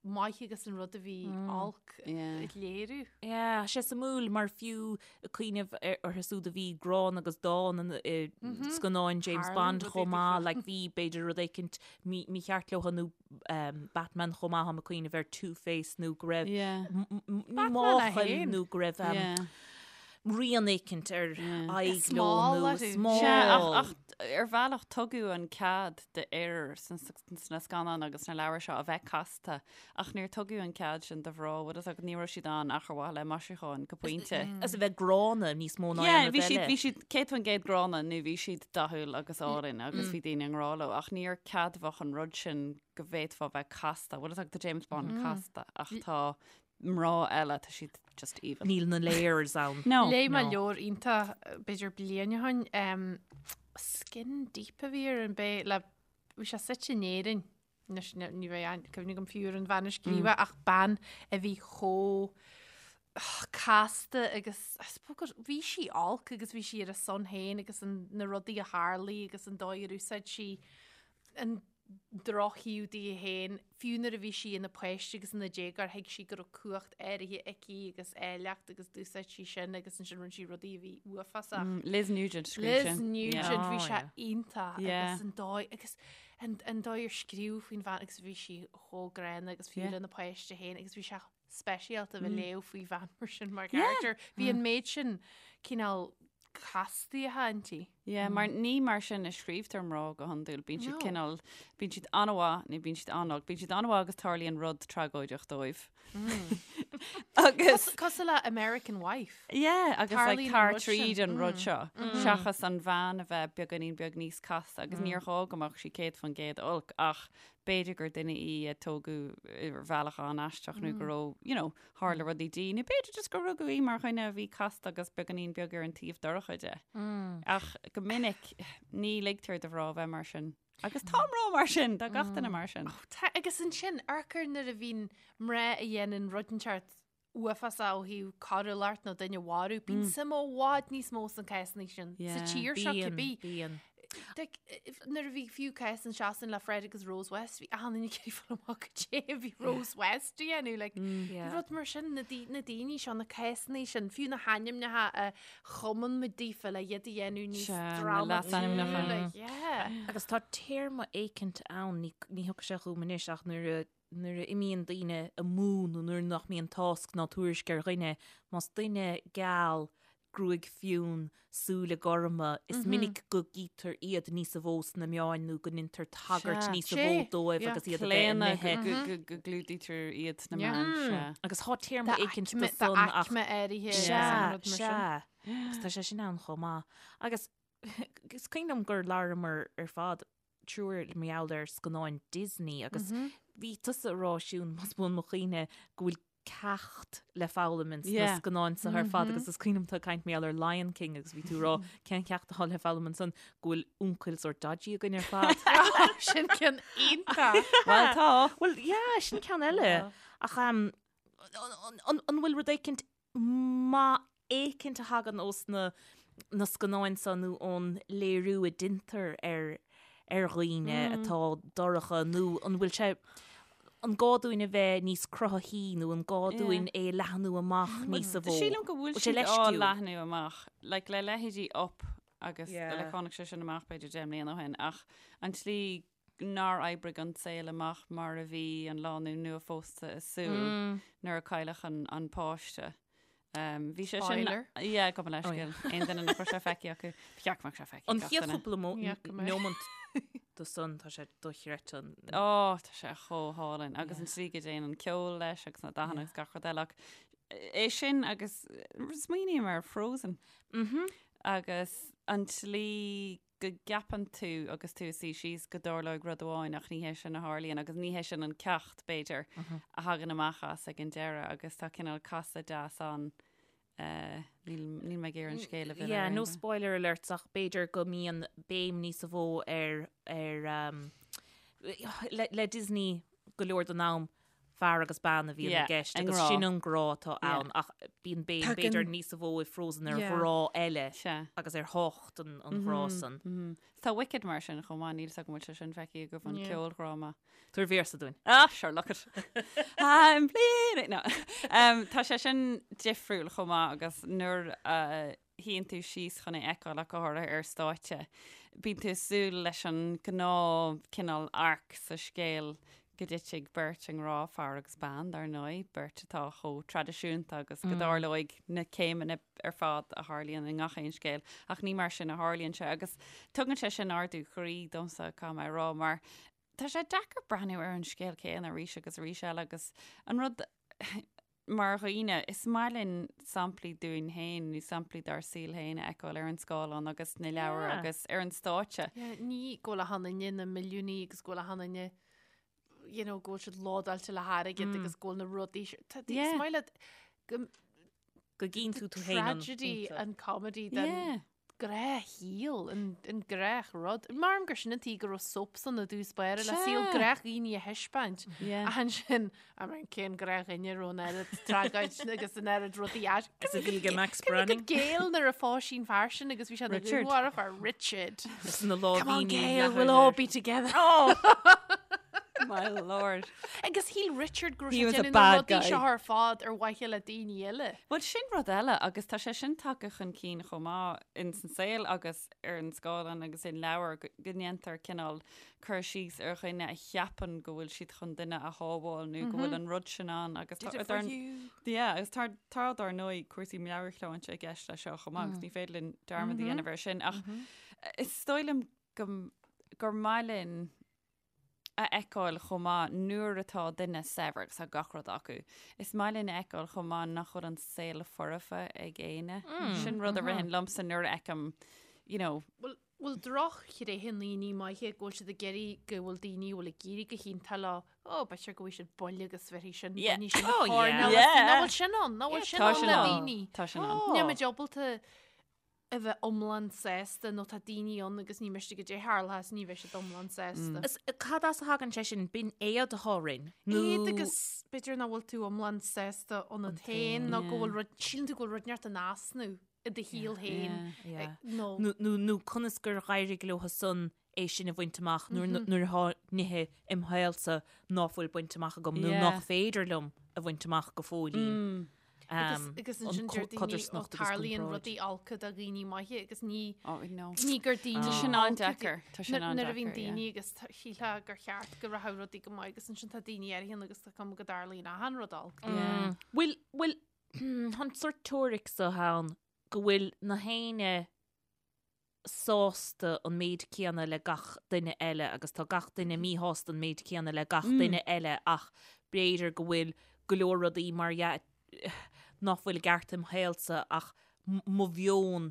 maith agus an rud a bhí olc a léiriú. Yeah, sé suimiúil mar fiú ag cuimhneamh orthu siúd a bhí gránna agus dána i scannáin James Bond chomh maith, like bhí b'fhéidir rud éicint mícheart leo nó Batman chomh maith, táim ag cuimhneamh ar Two-Face nó go raibh máchail nó go raibh rian éicint ar aghaidh leo nó smál. Ach ar bhealach tugadh an cead d'fhir sna scannáin agus sna leabhair seo a bheith casta ach níor tugadh an cead sin do mhná, bhfuil fhios agat, ní raibh siad ann ach ar mhaithe le maisiúcháin go pointe. As a bheith gránna níos mó ná aon rud eile. Bhí siad 100% gránna nó bhí siad dathúil agus álainn agus bhí daoine i ngrá leo ach níor ceadmhach an rud sin go bhféadfá bheith casta. Bhfuil fhios agat, tá James Bond casta ach tá mná eile, tá siad just evil. Níl na layers ann. No. Léigh mé leabhar iontach b'fhéidir bliain ó shin, Skin Deep a bhí air an b'é le, bhí sé suite in Éirinn, anois ní bheidh aon cuimhne agam fiú ar an bhean a scríobh é ach bean a bhí chomh. casta agus I suppose gur bhí sí olc agus bhí sí ar a son féin agus an, na rudaí a tharlaigh agus an dóigh ar úsáid sí an drochthaobh di féin, fiú nuair a bhí sí ina páiste agus ina déagóir thuig sí go raibh cumhacht áirithe aici agus áilleacht agus d'úsáid sí sin agus ansin rinne sí rudaí a bhí uafásach. Mm, Liz Nugent scríobh Liz sin. Nugent, Yeah. bhí Oh, sé yeah. iontach Yeah. agus an dóigh agus an, an dóigh ar scríobh faoin bhean agus bhí sí chomh gránna agus fiú Yeah. lena páiste féin agus bhí sé speisialta a bheith ag léamh faoi bhean mar sin mar character. Bhí an méid sin cineál castaithe inti. Yeah, mar ní mar sin a scríobhtar mná go hiondúil. Bíonn siad No. cineál, bíonn siad an-mhaith nó bíonn siad an-olc. Bíonn siad an-mhaith agus tarlaíonn rud tragóideach dóibh. Agus Cosúil le American Wife. Yeah, agus like, Tarlaíonn an tar rud sin. tríd an rud seo. Seachas an bhean a bheith beagáinín beag níos casta agus níor ghá go mbeadh sí 100% olc ach b'fhéidir gur duine í a tógadh ar bhealach an-aisteach nó go raibh, you know, tharla rudaí di, nó b'fhéidir just gur rugadh í mar dhuine a bhí casta agus beagáinín beag ar an taobh dorcha de. Ach go minic ní ligtear do mhná bheith mar sin. Agus tá mná mar sin, tá gach duine mar sin. Tá, agus ansin, amharc nuair a bhíonn mná a dhéanann rud inteacht uafásach ó thaobh coiriúlacht nó duine a mharú, bíonn suim i bhfad níos mó sna cásanna sin sa tír seo cibé. Bíonn. Like, nuair a bhí fiú cás in Sasain le Fred agus Rose West, bhí achan duine ag iarraidh fáil amach cad é a bhí Rose West a dhéanamh, like, rud mar sin, na na daoine seo, na cásanna sin, fiú na hainmneacha a chumann muid daofa le iad a dhéanamh níos Sea, na drámatúla, leasainmneacha. yeah. Agus tá téarma éicint ann, ní ní thiocfaidh sé chugam anois ach nuair a nuair a imíonn daoine amú nó nuair nach mbíonn tásc ná tuairisc ar dhuine, más duine geal, gruaig fionn, súile gorma, is minic go gcítear iad níosa mhó sna meáin nó go ndeintear tagairt Sea. níosa mhó Sea. dóibh Yeah. agus iad a bheith Claonadh imithe. go go go gclúdaítear iad sna meáin, sea. Agus tá téarma éicint do san ach D'aicme áirithe Sea, agus an rud mar sin. sea. Agus tá sé sin ann chomh maith. Agus is cuimhin liom gur labhramar ar fad triúr mar gheall ar scannáin Disney agus bhí tusa ag rá Siún, más buan mo chuimhne, go bhfuil ceacht le foghlaim ins na scannáin seo ar fad agus is cuimhin liom tú ag caint mar gheall ar Lion King agus bhí tú ag rá cén ceacht atá le foghlaim ansan go bhfuil uncail sórt dodgy againn ar fad. Sin ceann iontach! Bhuel tá! Bhuel yeah, sin ceann eile. Ach an bhfuil rud éicint maith éicint a thagann ós na na scannáin seo nó ón léiriú a deintear ar ar dhaoine atá dorcha nó an bhfuil sé an gá dúinn a bheith níos cruthaithí nó an gá dúinn é a leathnú amach níosa mhó? Sílim go bhfuil Bhfuil sé siad á leisciúil? leathnú amach, like le leithéidí Up agus Yeah. like tháinig sé sin amach b'fhéidir 10 mbliana ó shin ach an tslí nár oibrigh an saol amach mar a bhí an lánúin nua-phósta ag súil nuair a cailleadh an, an páiste. Um, bhí sé sin Spoiler. Yeah, gabh mo leithscéal. Aon duine nach raibh sé feicthe acu. Ba cheart go mbeadh sé feicthe An ag gach chéad duine. chúpla mo- Yeah, go mbeidh. neomant de san tá sé dochreidte an Ó, tá sé chomh hálainn agus an tslí go dtéann an ceol leis agus na dathanna agus gach rud eile ach é sin agus smaoiním ar Frozen agus an tslí go gceapann tú agus tú ag suí síos go dtarlóidh rud amháin ach ní hé sin a tharlaíonn agus ní hé sin an ceacht, b'fhéidir, a thagann amach as ag an deireadh agus tá cineál casadh deas ann. Níl níl mé ag iarraidh an scéal a mhilleadh Yeah, ar no aon duine. spoiler alerts ach b'fhéidir go mbíonn béim níosa mhó ar ar um, le, le Disney go leor den am fear agus bean a bhíonn i Yeah, gceist an agus grá. sin an grá atá Yeah. ann ach bíonn béim Tagann- b'fhéidir níosa mhó i Frozen ar Yeah. ghrá eile Sea. agus ar thábhacht an, an ghrá san. Tá Wicked mar sin chomh maith, níl 's agam an bhfuil sé sin feicthe agaibh an Yeah. ceoldráma. Tabhair véarsa dúinn. Ah, sure, look it. I'm bleeding. No. Um, tá sé sin difriúil chomh maith agus nuair a shuíonn tú síos chun é a fheiceáil ach go háirithe ar stáitse, bíonn tú ag súil leis an gnáth cineál arc sa scéal go dtitfidh beirt i ngrá, fear agus bean, dar ndóigh, beirt atá chomh traidisiúnta agus go dtarlóidh na céimeanna ar fad a tharlaíonn i ngach aon scéal, ach ní mar sin a tharlaíonn sé agus tugann sé sin ardú croí domsa, caithfidh mé a rá, mar tá sé deacair breathnú ar an scéal céanna arís agus arís eile agus an rud mar dhaoine, is maith linn samplaí dúinn féin nó samplaí dár saol féin a fheiceáil ar an scáileán agus sna leabhair Yeah. agus ar an stáitse. Yeah, ní go bhfuil achan duine ina milliúnaí agus go bhfuil achan duine you know, go bhfuil siad lódáilte le hairgead agus go bhfuil na rudaí seo- Tá- Yeah. Is maith leat go Go gcíonn tú tú féin an tragedy pointe. and comedy den Yeah. gnáthshaol, an gnáthrud. Measaim gur sin an tuige go raibh soaps ann i dtús báire le saol gnáthdhaoine a thaispeáint. Ach ansin, I mean, cén gnáthdhuine a raibh an oiread tragóid agus an oiread rudaí as. Is a bhí ag Max Branning. Gail nuair a phós sí an fear sin agus bhí sé ina Richard. dhúnmharfóir Richard. Is na lámhainní Come on Gail, we'll all be together. Oh! My lord. Agus shíl Richard go raibh He sé was a déanamh na bad rudaí guy. seo ar fad ar mhaithe le daoine eile. Bhuel sin rud eile agus tá sé sin tagtha chun cinn chomh maith in san saol agus ar an scáileán agus in leabhair go go ndéantar cineál cur síos ar dhuine a cheapann go bhfuil siad chun duine a shábháil nó go bhfuil an rud sin ann agus Did tá it for dar you. yeah, agus tá tá dar ndóigh cúrsaí meabhairshláinte i gceist leis seo chomh maith agus ní féidir linn dearmad a dhéanamh air sin ach is dóigh liom go gur maith linn a fheiceáil chomh maith nuair atá duine saibhir agus tá gach rud acu. Is maith linn a fheiceáil chomh maith nach bhfuil an saol foirfe ag éinne. Sin rud a ritheann liomsa nuair a fheicim, you know, Bhfuil bhfuil drochthréithe i ndaoine maithe go bhfuil siad ag iarraidh go bhfuil daoine a bhfuil ag éirí go hiontach leo, ó, b'fhéidir go bhfuil siad buille agus bheirfidh sin, Yeah. bainfidh sin Oh, an choirnéal yeah. as Yeah. Nach bhfuil sin ann, nach bhfuil sin tá ann sin le ann. daoine. Tá sin ann. Níl muid ábalta a bheith iomlán sásta nó tá daoine ann agus ní miste goidé tharla is ní bheidh siad iomlán sásta. Is cad as a thagann sé sin? B'in éad atá orainn? Nó Éad agus b'fhéidir nach bhfuil tú iomlán sásta ionat féin nó go bhfuil rud, síleann tú go bhfuil rud inteacht in easnamh i do shaol féin Yeah. nó Nó, nó, nó conas gur éirigh leo san é sin a bhaint amach nuair nuair atá nithe im shaolsa ná fuil bainte amach agam nó Yeah. nach féidir liom a bhaint amach go fóillín. Agus agus ansin deir daoine ó codarsnacht agus tarlaíonn comparáid. rudaí olca do dhaoine maithe agus ní Oh, no. ní gur daoine Tá sin olca an-deacair. Tá sin Nuair nuair a bhíonn an-deacair, yeah. daoine agus tá- shílfeá gur cheart go rachadh rudaí go maith agus ansin tá daoine áirithe agus tá cuma go dtarlaíonn achan rud olc. Yeah. Bhfuil bhfuil an sórt teoiric so ann go bhfuil na héinne sásta an méid céanna le gach duine eile agus tá gach duine míshásta an méid céanna le gach duine eile ach b'fhéidir go bhfuil go leor rudaí mar dhea nach bhfuil i gceart im shaolsa ach mo mheon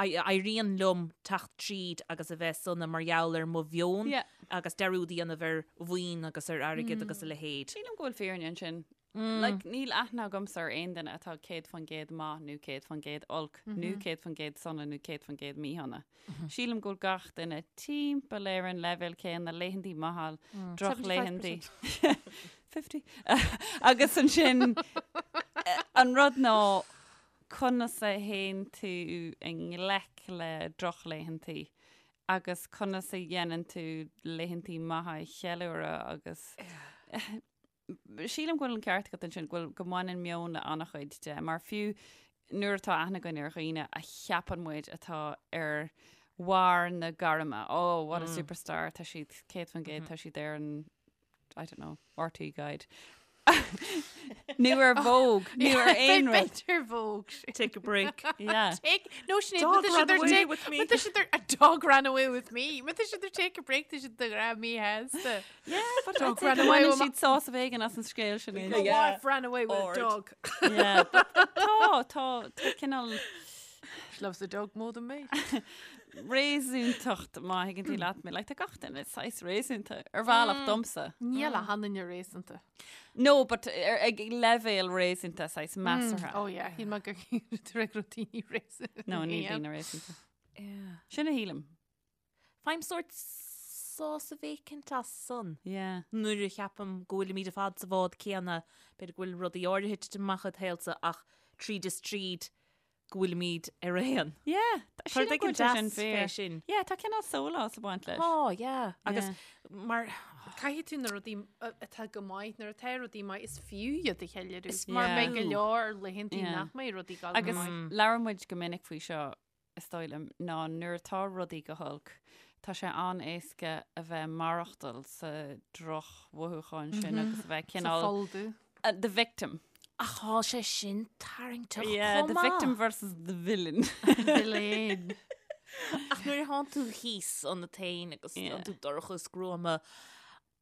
éiríonn liom teacht tríd agus a bheith sona mar gheall ar mo mheon agus dearúd a dhéanamh ar mhaoin agus ar airgead agus a leithéid. Sílim go bhfuil fírinne ansin. Like, níl aithne agamsa ar aon duine atá 100% maith nó 100% olc nó 100% sona nó 100% míshona. Sílim go bhfuil gach duine timpeall ar an leibhéal céanna, laethantaí maithe, drochlaethantaí. 50. Agus ansin an rud ná conas a théann tú i ngleic le drochlaethantaí agus conas a dhéanann tú laethantaí maithe a cheiliúradh agus Sílim go bhfuil an ceart agat ansin, go bhfuil, go mbaineann meon le an-chuid de, mar fiú nuair atá aithne againn ar dhaoine a cheapann muid atá ar bharr na gairme, oh, what a superstar, tá siad 100%, tá siad ar an, I don't know, RTÉ Guide. Nó ar Vogue, nó ar aon rud. B'fhéidir Vogue. Take a break. Yeah. Take, no, Sinéad, Dog but ran they're away take, with me. But they should a dog ran away with me. But they should take a break, they should the grab me has the Yeah, but Dog I'd ran say away go with mbaineann siad sásamh éigin as an scéal sin. My wife ran away with Ord. a dog. Yeah, but tá, tá, tá cineál She loves the dog more than me. réasúntacht má thuigeann tú leat mé, like, tá gach duine saghas réasúnta ar bhealach domsa. Níl aon duine réasúnta. No, but ar, ag leibhéal réasúnta saghas measartha. Oh yeah, shíl mé gur gur daoine réasúnta. No, níl daoine réasúnta. Sin a shílim. Faighim sórt sásamh éicint as san. Yeah. Nuair a cheapaim go bhfuilimid ar fad sa bhád céanna, b'fhéidir go bhfuil rudaí áirithe ag titim amach id shaolsa ach tríd is tríd go bhfuilimid ar aon. Yeah, tá Tá rud sílim go éigin bhfuil sé sin deas fé fíor. sin. Yeah, tá cineál sólás ag baint leis. Oh, yeah. Agus Yeah. mar Caithfidh tú na rudaí atá go maith, nuair atá rudaí maith, is fiú iad a cheiliúradh. Is Mar Yeah. beidh go leor laethantaí Yeah. nach mbeidh rudaí ag dul go Agus maith. labhair muid go minic faoi seo, is dóigh liom, ná nuair atá rudaí go holc, tá sé an-éasca a bheith maireachtáil sa drochmhothúchán sin agus a bheith Sa cineál pholl dubh. the victim. Ach tá sé sin tarraingteach Yeah, chomh the maith. victim versus the villain. Villain. Ach nuair a thánn tú thíos ionat féin agus Yeah. tá tú dorcha is gruama,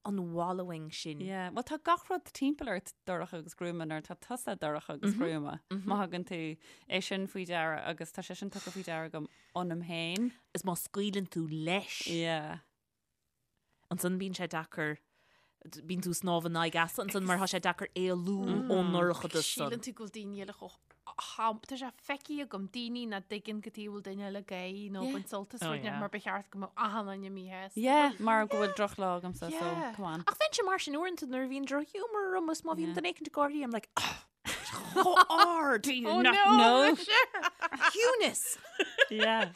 an wallowing sin. Yeah, well tá gach rud timpeall ort dorcha agus gruama nuair atá tusa dorcha agus gruama. Má thugann tú é sin faoi deara agus tá sé sin tugtha faoi deara agam ionam féin. Is má scaoileann tú leis. Yeah. Ansan bíonn sé deacair. Bíonn tú ag snámh in aghaidh easa ansan mar tá sé deacair éalú ón ndorchadas san. Síleann tú go bhfuil daoine eile chomh ham, tá sé feicthe agam daoine nach dtuigeann cad chuige a bhfuil duine eile ag gáirí nó ag baint sult as rud mar ba cheart go mbeadh achan duine míshásta. Yeah, mar go bhfuil drochlá agamsa, so come on. Ach bheinnse mar sin uaireanta nuair a bhíonn drochghiúmar orm is má bhíonn duine éicint ag gáirí, I'm like, oh, chomh hard! Do you Oh not no, know? Ciúnas! Yeah.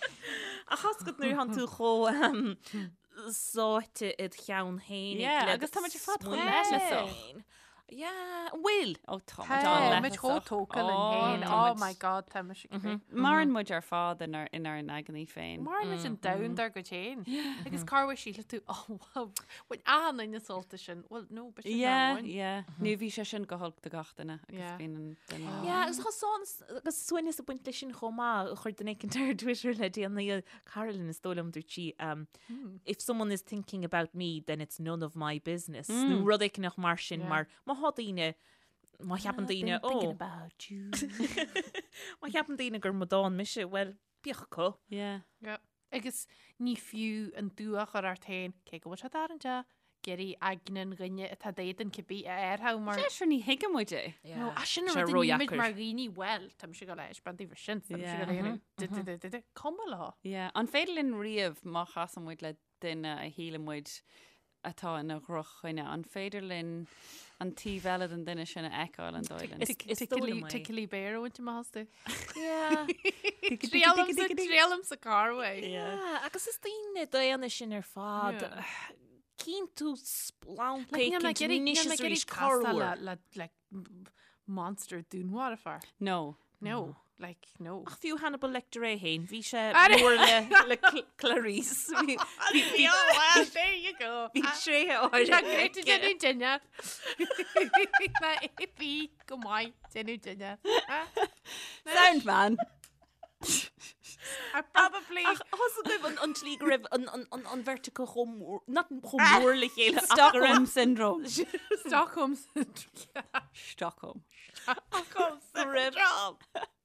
Ach tá a fhios agat nuair atánn tú chomh sáite id cheann féin. Yeah, agus tá muid ar fad chomh leithleasach. Yeah, an bhfuil? Ó tá muid Tá an-leithleasach. muid chomh tógtha linn féin. Oh my God, tá muid ag rith. Maireann muid ar fad inár inár n-aigne féin. Maireann muid an domhan dár gcuid féin. Agus corruair síleann tú, oh wow, bhain achan duine sult as sin. Well, no, but sin Yeah, amháin. yeah. Nó bhí sé sin go holc do gach duine agus Yeah. bíonn an duine. Yeah, agus tá sán agus suaimhneas ag baint leis sin chomh maith, chuir duine éicint ar Twitter le déanaí, Carolyn is dóigh liom, dúirt sí, if someone is thinking about me then it's none of my business, nó rud éicint mar sin, mar má thá daoine, má cheapann daoine, ó, Thinking about you. má cheapann daoine gur amadán mise, well, bíodh acu. Yeah. Yeah. Agus ní fiú an dua a chur ort féin, cé go bhfuil sé tarraingteach, ag iarraidh aigne an dhuine atá d'éadan cibé a fhearthadh mar. Sé sure ní thuigeann muid é. No, ah, sin an Sé rud a nímid ródheacair. mar dhaoine, well, tá mise ag dul a thaispeáint daoibh sin, tá mise ag dul a dhéanamh du- du- du- du- du. Cuma leo. Yeah. An féidir linn riamh má chasann muid le duine a shíleann muid atá ina dhrochdhuine, an féidir linn an taobh eile den duine sin a fheiceáil an dóigh linn? Is dóigh liom é. Tickly bear a bhaint amach astu. Yeah. Triailimsa, triailimsa corruair. Yeah, agus is daoine daonna sinn ar fad. Yeah. Cíonn tú splanc Like, níl mé éicint ag iarraidh- níl anois mé is ag iarraidh arís castáil corruair. le, le, like, monster dúnmharfach. No. No, like, no. Ach fiú Hannibal Lecter é féin, bhí sé Are- mór le, le Cl- Clarice. Bhí, bhí, bhí, well, there you go. bhí tréithe Tá áirithe great aige. déanamh duine. Ná bhí go maith déanamh duine. Sound man! I probably Ach tá a fhios agaibh an, an tslí go raibh an, an, an, an bheirt acu chomh mór, not chomh mór le chéile ach go raibh Stockholm Syndrome. Stockholm syndrome. Stockholm. Stockholm go raibh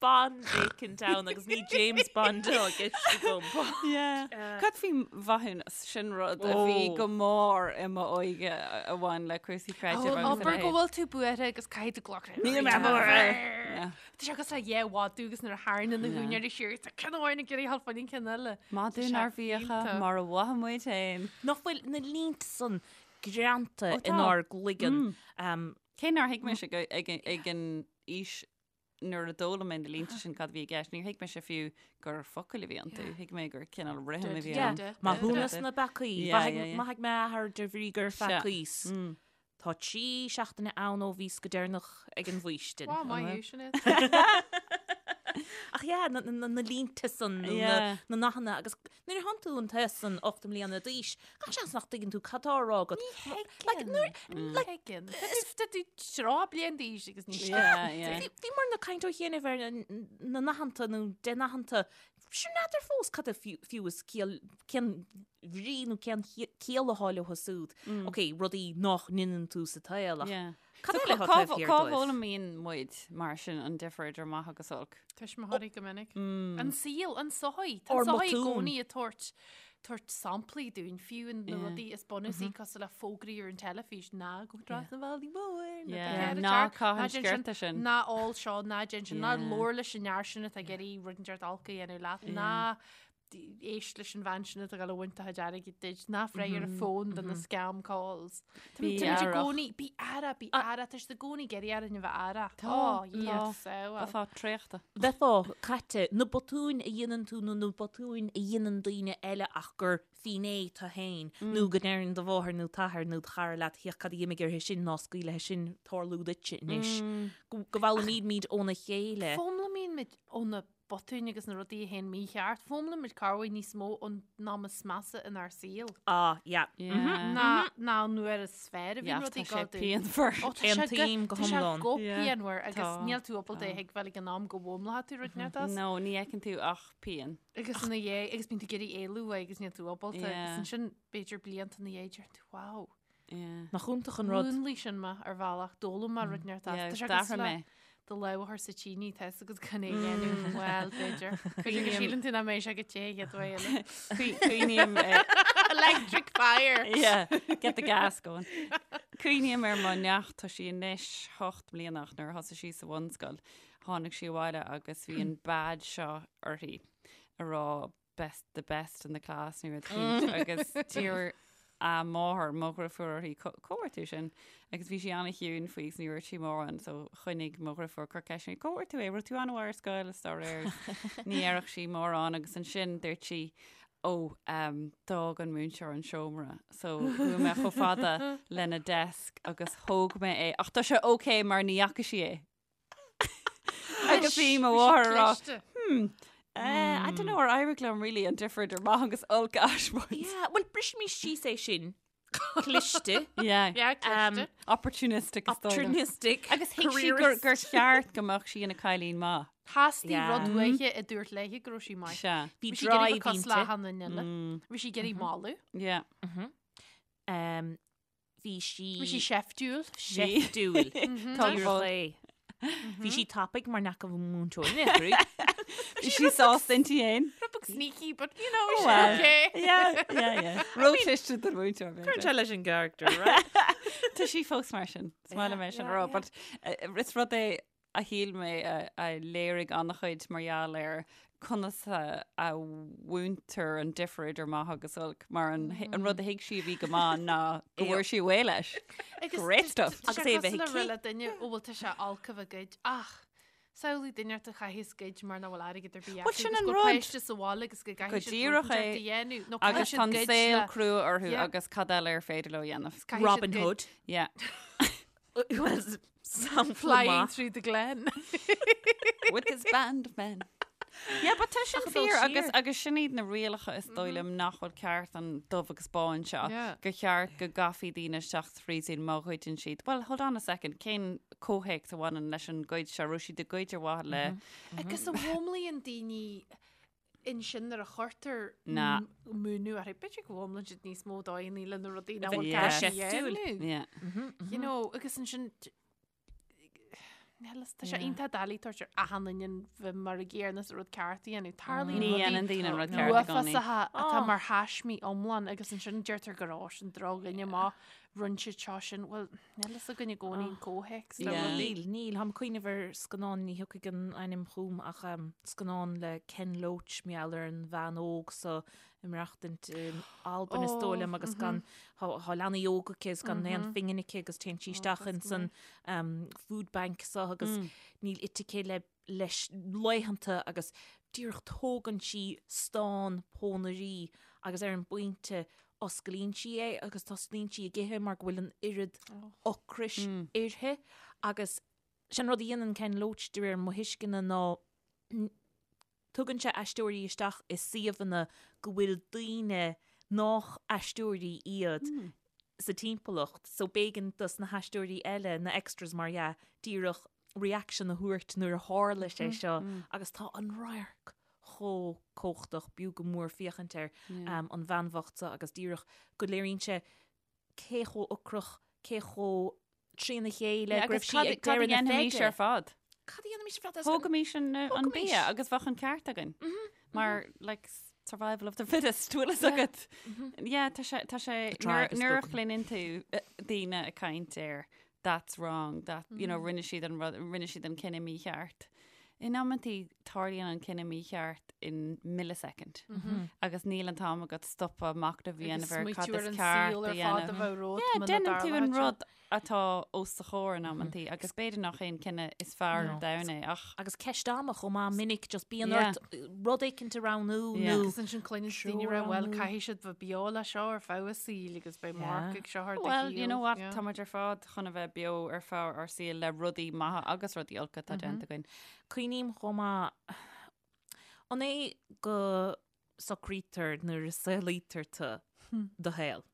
Bond éicint ann agus ní James Bond atá i gceist agam. Yeah. Cad faoi mhaithiúnas sin rud a bhí Oh. go mór i m'óige a bhain le cúrsaí creidimh agus a Abair go leithéid. bhfuil tú buartha agus caithfidh tú glacadh. Níl mé buartha. Yeah. Tá sé cosúil le dhá mhadadh agus nuair a tharraingíonn na húinéirí siar, tá ceann amháin ag iarraidh a ghabháil fá choinne an ceann eile. Madadh nár mhíocha mar a mhothaigh muid féin. Nach bhfuil na línte san greanta Ó, tá. inár gcloigeann. Um, Cé nár thuig mise ag, ag, ag an aois nuair a d'fhoghlaim mé na línte sin cad a bhí i gceist, níor thuig mise fiú gur focail a bhí iontu. Thuig mé gur cineál rithim a bhí Yeah. ann. Maithiúnas na bpeacaí. Yeah, yeah, yeah. Maithfidh m'athair de bhrí gur Sea. pheacaíos. Tá 3 seachtaine ann ó bhíos go deireanach ag an bhfaoistin. Wow, maith thú, Sinéad. Ach yeah, na, na, na línte san, nó na, Yeah. na nathanna, agus nuair a thánn tú an t-aos san 8 mbliana d'aois, gach seans nach dtuigeann tú cad tá á rá agat. Like, nuair, Like, Tuigeann. Tá tú 30 bliain d'aois agus ní Yeah, yeah. Bhí bhí muid ag caint ó chianaibh ar na na nathanta nó de nathanta, sure n'fheadar fós cad é fiú fiú is ciall cén bhrí nó cén chiall atá leo siúd. Ok, rudaí nach ndeineann tú sa tsaol ach Yeah. cad So eile atá cá taobh thiar cá dóibh? bhfoghlaimíonn muid mar sin an difear idir maith agus olc? Tuismitheoirí go minic. An saol, an sochaí. Tá Ár an sochaí i mbotúin. gcónaí ag tabhairt tabhairt samplaí dúinn, fiú in na Yeah. rudaí is bunúsaí cosúil le fógraí ar an teilifís, ná gabh trasna an bhealaigh mhóir, ná Yeah. bí cead Ná tearc, caith an ná déan sin, sciorta sin. Ná ól seo, ná déan sin, ná Yeah. labhair leis an fhear sin atá ag iarraidh rud inteacht olc a dhéanamh leat, ná éist leis an bhean sin atá ag dul a bhaint do chuid airgid duit, ná freagair an fón do na scam calls. Tá Bí muid i aireach. gcónaí, bí aireach, bí aireach, tá siad i gcónaí ag iarraidh orainn a bheith aireach. Tá, Ó, tá. yes, so well. Bheifeá traochta. Bheifeá caite, na botúin a dhéanann tú nó na botúin a dhéanann daoine eile ach gur finné tú féin nó go ndeireann do mháthair nó t'athair nó do chara leat féach cad a d'imigh uirthi sin ná scaoil leis sin tarlú duitse anois. Go go bhfoghlaimímid óna chéile. Foghlaimíonn muid ó na botúin agus na rudaí a théann mícheart. Foghlaimíonn muid corruair níos mó ón am is measa inár saol. Ah, yeah. Yeah. Ná ná an uair is fearr a bhíonn Yeah, rudaí tá sé ag dul. pianmhar. Ó, tá sé go- Aontaím go tá sé hiomlán. go Yeah. pianmhar agus Tá, níl tú ábalta é a thuigbheáil ag an am go bhfoghlaimeoidh tú rud inteacht as. No, ní fheiceann tú ach pian. Agus ina dhiaidh, agus bíonn tú ag iarraidh éalú uaidh agus níl tú ábalta. Yeah. Agus ansin b'fhéidir blianta ina dhiaidh deireann tú, wow. Yeah. Nach iontach an rud. Mhúnlaigh sin mé ar bhealach, d'fhoghlaim mé rud inteacht as. Yeah, Tá sé d'athraigh cosúil le mé. Do lámh a chur sa tine, tá fhios agat gan é a dhéanamh. Bhuel, b'fhéidir. B'fhéidir go síleann tú nach mbeidh sé go te an chéad uair eile. Cuimhním Electric fire! Yeah, get the gas going. Cuimhním ar mo neacht, tá sí anois 8 mbliana ach nuair a thosaigh sí sa bhunscoil, tháinig sí abhaile agus bhí an badge seo uirthi a rá best the best in the class nó rud éicint agus d'iarr a máthair, mo dhriofúr uirthi, cá bhfuair tú sin? Agus bhí sí an-chiúin faoi is ní dúirt sí mórán so choinnigh mo dhriofúr ag cur ceisteanna uirthi, cá bhfuair tú é? Raibh tú an-mhaith ar scoil is dá réir. Ní dhéarfadh sí mórán agus ansin dúirt sí ó d'fhág an múinteoir an seomra so chuaigh mé chomh fada lena desk agus thóg mé é ach tá sé ok mar ní fhaca sí é. Agus bhí mo mháthair ag rá, hmm, eh, I don't know ar éirigh liom really an difear idir maith agus olc a thaispeáint. Yeah, well brisimis síos é sin. Cliste. Yeah. Yeah, cliste. Opportunistic is dóigh liom. Opportunistic. Agus thuig sí gur, gur cheart go mbeadh sí ina cailín maith. Theastaigh Yeah. rud uaithi a dúirt léi go raibh sí maith. Sea. Bhí Bhí sí ag iarraidh drive bheith cosúil le inti. achan duine eile. Bhí sí ag iarraidh moladh. Yeah. Um, Bhí sí. Bhí sí seiftiúil. Seiftiúil. Tá Díreach é. Bhí sí tapaidh mar nach raibh múinteoir in aon chor. Bhí sí sásta inti fhéin. Rud beag sneaky, but you know, she's Well, okay. Yeah, yeah, yeah. Róchliste don mhúinteoir. Cuireann sé leis an gcharacter, right? Tá sí fós mar sin. Is maith liom é sin a rá, but eh, is rud é a shíl mé a léirigh an-chuid mar gheall ar conas a mhúintear an difear idir maith agus olc, mar an rud a thuig sí a bhí go maith ná go bhfuair sí away leis. Great stuff. Agus é a bheith aici. le duine ó bhfuil tá sé olc a bheith ag goid ach samhlaigh duine ort a chaitheas goid mar nach bhfuil airgead ar bith Bhuel, acu sin agus an go rud. páiste sa bhaile agus go Go gcaithfidh siad díreach rud é. inteacht a dhéanamh nó Agus caithfidh tá siad an goid saol le crua orthu Yeah. agus cad eile ar féidir leo a dhéanamh. caithfidh siad Robin goid. Hood. Yeah. Well, sampla Flying maith. through the glen. With his band of men. Yeah, but tá sin Ach, dul fíor agus siar. agus sin iad na rialacha is dóigh liom nach bhfuil ceart an dubh agus bán seo. Yeah. Gur cheart go gcaithfí daoine isteach sa phríosún má ghoideann siad. Well, hold on a second, cén comhthéacs a bhaineann leis an goid seo? Raibh siad ag goid ar mhaithe le Agus an bhfoghlaimíonn daoine ansin nuair a chuirtear Na. múineadh orthu, b'fhéidir go bhfoghlaimíonn siad níos mó dóigheanna le na rudaí nach bhfuil Yeah. ceart a Seiftiúil. dhéanamh. Yeah. You know, agus ansin Níl, tá sé iontach doiligh tabhairt ar achan duine bheith mar an gcéanna is an rud ceart a dhéanamh. Tarlaíonn Ní rudaí dhéanann daoine an rud ceart i gcónaí. uafásacha atá Oh. mar thaismí iomlán agus ansin deirtear gur ó sin drochdhuine má rinne siad seo sin. Bhuel, níl fhios againn i gcónaí an comhthéacs le Yeah. rudaí. Níl, níl. Táim ag cuimhneamh ar scannán, ní thiocfaidh an ainm chugam ach um, scannán le Ken Loach mar gheall ar an bhean óg so ag maireachtaint in Albain is dóigh liom agus gan tá leanaí óga aici is gan aon phingin aici agus téann sí isteach in san um, food bank so agus níl ite aici le leis laethanta agus díreach tógann sí stán pónairí agus ar an bpointe osclaíonn sí é agus tosnaíonn sí ag ithe mar go bhfuil an oiread ocrais uirthi agus sin rud a dhéanann Ken Loach de réir mo thuisceana ná tugann sé aisteoirí isteach i suíomhanna go bhfuil daoine nách aisteoirí iad sa timpeallacht so b'éigean dos na haisteoirí eile, na extras mar dhea, díreach reaction a thabhairt nuair a tharla sé seo agus tá an radharc chomh cumhachtach, b'fhiú go mór féachaint air, an bhean bhocht seo agus díreach go léiríonn sé cé chomh ocrach, cé chomh trína chéile go raibh sí ag Cad a deireadh na dhéanfaimis feide. ar fad? Cad a dhéanfaimis ar fad? Thógaimis an Thógaimis. bia agus bheadh an ceart againn. Mar, like, survival of the fittest, bhfuil fhios agat. Yeah, tá sé, tá sé, tribe has nuair a spoken. chluineann tú daoine ag caint ar that's wrong, that, you know, rinne siad an rud, rinne siad an cinneadh mícheart. In amantaí tarlaíonn an cinneadh mícheart in millisecond. Agus níl an t-am agat stopadh machnamh a dhéanamh ar cad is ceart a dhéanamh. Yeah, déanann tú an rud atá os do chomhair in amantaí agus b'fhéidir nach é an cinneadh is fearr ar domhan é ach. Agus ceist ama chomh maith minic just bíonn Yeah. ort rud éicint a roghnú Yeah. nó Agus ansin cluineann daoine ag rá bhuel caithfidh siad bheith beo le seo ar feadh a saoil agus beidh marc ag seo ar do Well, you shaol. know what, Yeah. tá muid ar fad chun a bheith beo ar feadh ár saoil le rudaí maithe agus rudaí olca atá déanta againn. Cuimhním chomh maith an é go socraítear nuair a saolaítear tú do shaol?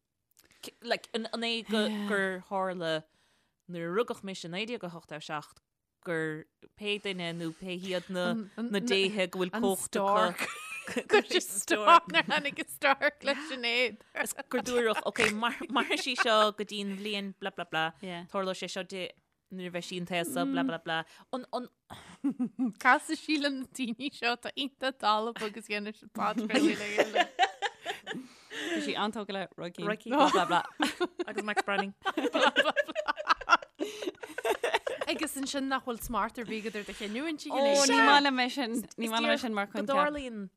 Like, an an é go gur tharla nuair a rugadh mise i 1987 gur pé duine nó pé hiad na na déithe go bhfuil An cumhacht stork. acu Gur sé stork nuair tháinig an stork leis an éad. Is gur dúradh, ok, mairfidh sí seo go dtí an bhliain bla bla bla, Yeah. tarlóidh sé seo di nuair a bheidh sí an t-aos seo bla bla bla. An, an, Casfaidh sí le na daoine seo atá iontach dalba agus dhéanfaidh siad podchraoladh le chéile. Bhí sí an-tógtha le Roy Keane. Roy Keane. Blah, blah, blah. Agus Max Branning. Agus ansin nach bhfuil smacht ar bith agat ar do chinniúint. Ó, ní maith liom é sin. Ní maith liom é sin mar Go choincheap. dtarlaíonn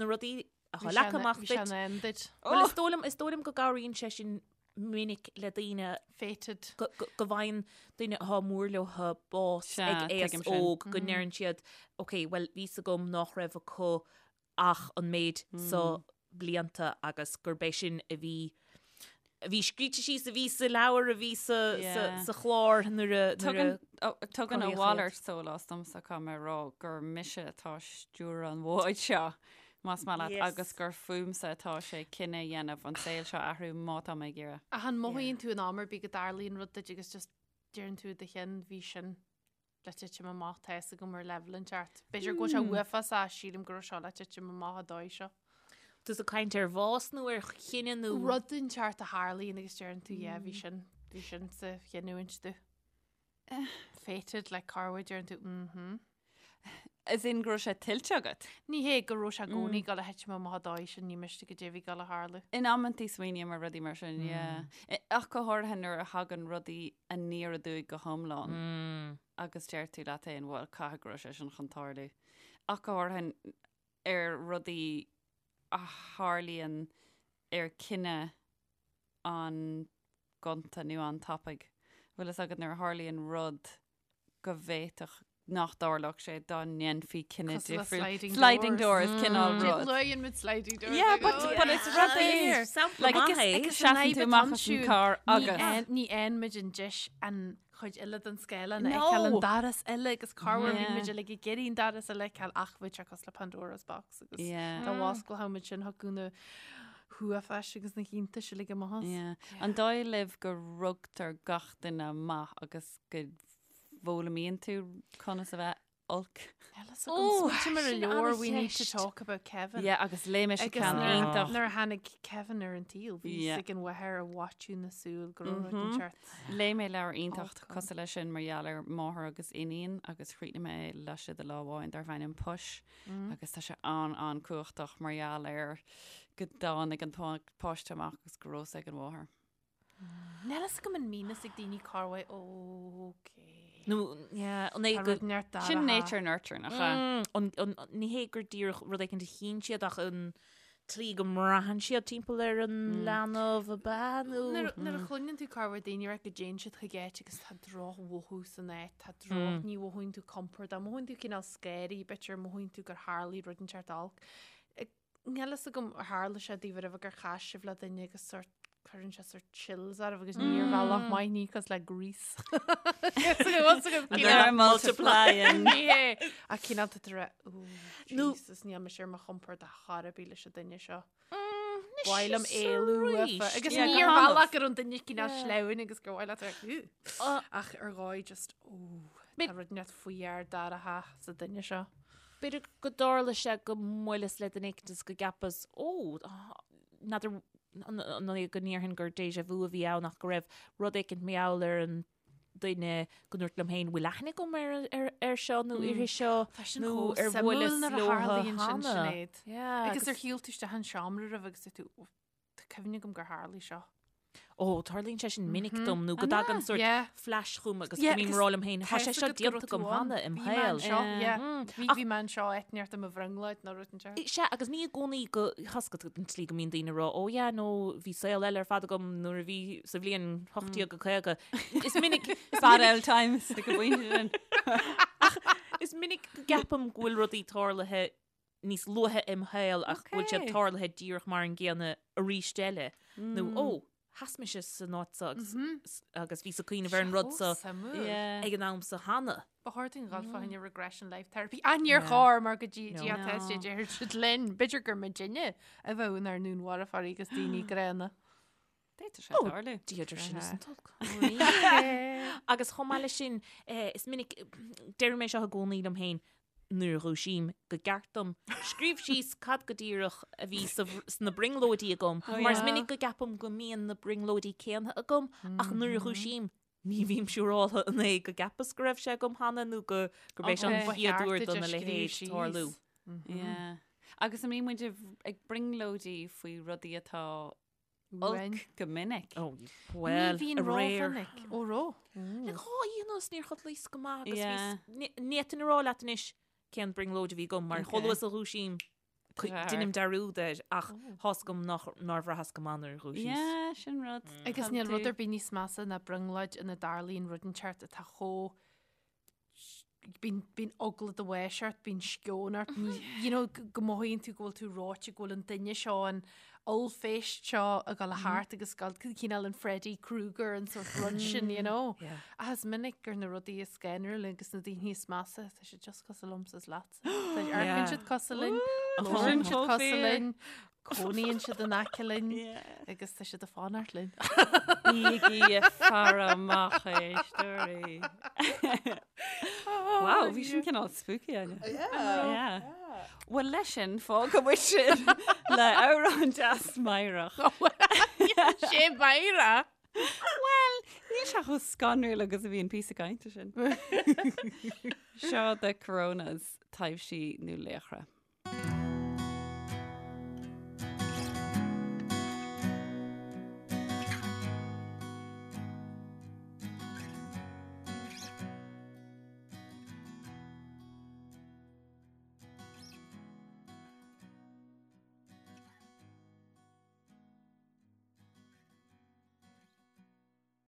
na rudaí atá leagtha amach duit. duit. Bhí duit. Bhuel, is dóigh liom, is dóigh liom go gcabhraíonn sé sin minic le daoine Fated. go, go, go bhfaigheann duine atá mór leo bás Sea, ag aos tuigim sin. óg go ndeireann siad, ok, well, bhí 's agam nach raibh acu ach an méid so blianta agus gurb é sin a bhí a bhí scríte síos, a bhí sa leabhar, a bhí sa, sa, sa chlár nuair a, nuair a Tugann a cruthaíodh iad. mhalairt sólás domsa caithfidh mé a rá gur mise atá ag stiúradh an bháid seo, más maith leat, Yes. agus gur fúmsa atá sé cinneadh a dhéanamh an saol seo a athrú má tá mé ag iarraidh. Ach an mothaíonn tú in am ar bith go dtarlaíonn rud duit agus just deireann tú i do chionn bhí sin le titim amach tá fhios agam ar leibhéal inteacht. B'fhéidir go bhfuil sé uafásach sílim go raibh seo le titim amach an dóigh seo. Tusa ag caint ar bhás nó ar chinneadh nó. Rud inteacht a tharlaíonn agus deireann tú yeah bhí sin bhí sin sa chinniúint do. Fated le corruair deireann tú mhm. As in go raibh sé tuillte agat? Ní hé go raibh sé i gcónaí ag dul a thitim amach an dóigh sin ní miste go dté bhí ag dul a tharlú. In amantaí smaoiním ar rudaí mar sin, yeah. Ach go háirithe nuair a thagann rudaí aniar aduaidh go hiomlán agus deir tú leat féin, bhuel, caithfidh go raibh sé sin chun tarlú. Ach go háirithe ar rudaí a tharlaíonn ar cinneadh an-ghonta nó an-tapaidh. Bhfuil fhios agat nuair a tharlaíonn rud go bhféadfadh nach dtarlódh sé dá ndéanfaí cinneadh Cosúil le difriúil. sliding Sliding doors. doors, cineál rud. Luíonn muid sliding doors. Yeah, but, but it's rud é. Sampla Like, maith é. agus seasann tú amach as an carr agus. Ní fhaigheann muid an deis an chuid eile den scáileán a No. fheiceáil an doras eile agus corruair bhí Yeah. muid uilig ag iarraidh an doras eile a fheiceáil ach bhí sé cosúil le Pandora's box agus Yeah. dá bhfosclódh muid sin thiocfadh na huafáis agus na hiontais uilig amach as. Yeah. An dóigh libh go rugtar gach duine maith agus go bhfoghlaimíonn tú conas a bheith olc? Ó, Smaoiním ar a sin leabhar We Need to an-cheist. Talk About Kevin. Yeah, agus léigh mise Agus ceann nuair- iontach. Nuair a tháinig Kevin ar an tsaol, bhí Yeah. fhios ag an mháthair a mhaitiú na súl go raibh rud inteacht. Léigh mé leabhar iontach Olc ann. cosúil leis sin mar gheall ar máthair agus iníon agus chríochnaigh mé é laistigh de lá amháin darb ainm Push agus tá sé an-an-cumhachtach mar gheall ar go dtáinig an páiste amach agus go raibh fhios ag an mháthair. Níl fhios agam an mbíonn fhios ag daoine corruair ok. Nó, yeah, an é Tá go... rud neart dara Sin ha. nature nurture nach ea? Mm, an, an, ní hé gur díreach rud éicint a chinn siad ach an tslí go mbraitheann siad timpeall ar an leanbh ab ea nó... Nuair nuair a chluineann tú corruair daoine ag rá go dtéann siad chuig áit agus tá drochmhothú san áit, tá droch, ní mhothaíonn tú compordach, mothaíonn tú cineál scary, b'fhéidir mothaíonn tú gur tharlaigh rud inteacht olc. Níl fhios agam ar tharla sé daoibh riamh gur chas sibh le duine agus sort cuireann sé sort chills oraibh agus ní ar bhealach maith ní cosúil le Grease. They're multiplying. Ní hé. Ach cineál tá tú ag rá, "Ooh, Nó- Jesus, níl mise ar mo chompord ar chor ar bith leis an duine seo. Anois Ba mhaith liom is éalú arís. uafa. Agus Yeah, ní go ar hannamh. bhealach gur an duine cineál sleamhain agus gur mhaith leat a rá, "Ooh." Ach ar dhóigh just, ooh, tá rud inteacht faoi dhear dara sa duine seo. B'fhéidir go dtarla sé go mbuaileas le duine éicint is go gceapas, ó, n'fheadar an é go ndéarfainn gur déjà vu a bhí ann ach go raibh rud éicint mar gheall ar an duine go ndúirt liom féin, bhfuil aithne agam ar, ar, ar seo nó uirthi seo Tá sin nó chomh ar suimiúil bhuaileas nuair a leo tharlaíonn sin, cheana. Sinéad. Yeah, Agus ar shiúil tú isteach an seomra roimh agus dúirt tú, "Ó, Tá cuimhne agam gur tharlaigh seo. Ó, tarlaíonn sé sin minic dom nó go dtagann sort Yeah. flash chugam agus Yeah, go mbím agus ag rá liom féin, tá sé tá seo fhios agat go déanta raibh agam tú ann. cheana im Bhí mé shaol. anseo, yeah. Mm. Bhí Ach- bhí mé anseo áit inteacht i mo bhrionglóid nó rud inteacht. Sea, agus ní i gcónaí go thosca an tslí go mbíonn daoine ag rá, ó yeah, nó bhí saol eile ar fad agam nuair a bhí sa bhliain 1850. Is minic, is Bad minic, old times ag an bpointe sin. is minic go gceapaim go bhfuil rudaí tarlaithe níos luaithe im shaol ach go bhfuil siad Okay. tarlaithe díreach mar an gcéanna arís eile. Nó, ó, sheas mise san áit seo agus, agus bhíos ag cuimhneamh ar an rud seo Suimiúil. Yeah. ag an am seo cheana. Ba chóir dúinn dhul fá choinne regression life therapy. Ach níor chóir mar go dtí No. dtí No. test deir siad linn. B'fhéidir gur muidinne a bheadh inár ndúnmharfóirí agus daoine gránna. D'fhéadfadh sé tarlú. Dia idir sinn is an t-olc. Agus chomh maith leis sin, eh, is minic, deirim é seo i gcónaí liom féin, nuair a dhúisím go gceart dom scríobh síos cad go díreach a bhí sna brionglóidí agam, mar is minic go gceapaim go mbíonn na brionglóidí céanna agam ach nuair a dhúisím ní bhím siúráltha an é go gceapas go raibh sé agam cheana nó go gurb é seo an Okay. chéad uair dona leithéid tarlú. Yeah. Agus an mbíonn muid ag brionglóidí faoi rudaí atá olc go minic? Oh, well, Ní bhíonn rómhinic. Ó ró. Le dhá oíche anuas níor chodlaíos go maith agus bhíos, ní fhéadfainn a rá leat anois cén brionglóid a bhí agam mar chomh luath is a dhúisím deinim dearúd air ach tá's agam nár bhraitheas go maith nuair a dhúisíos. Yeah, sin rud. Agus níl rud ar bith níos measa ná brionglóid ina dtarlaíonn rud inteacht atá chomh bíonn bíonn eagla do bháis ort, bíonn sceon ort, ní, you know, go mothaíonn tú go bhfuil tú reoite, go bhfuil an duine seo, an ollphéist seo ag dul thart agus ag dul cineál an Freddy Krueger an sort rud sin, you know. Ach is minic gur na rudaí is scanrúla agus na daoine is measa, tá siad just cosúil liomsa is leatsa. Tá amharcann siad cosúil linn, labhraíonn siad cosúil linn, cónaíonn siad in aice linn agus tá siad ag fanacht linn. Bígí ag faire amach a éisteoirí. Wow, bhí sin cineál spooky Áine. Yeah. Well leis sin fágfaidh muid sin le amhrán deas meidhreach. Sé meidhreach! Well, níl sé chomh scanrúil agus a bhí an píosa cainte sin. Seo The Coronas, taibhsí nó laochra.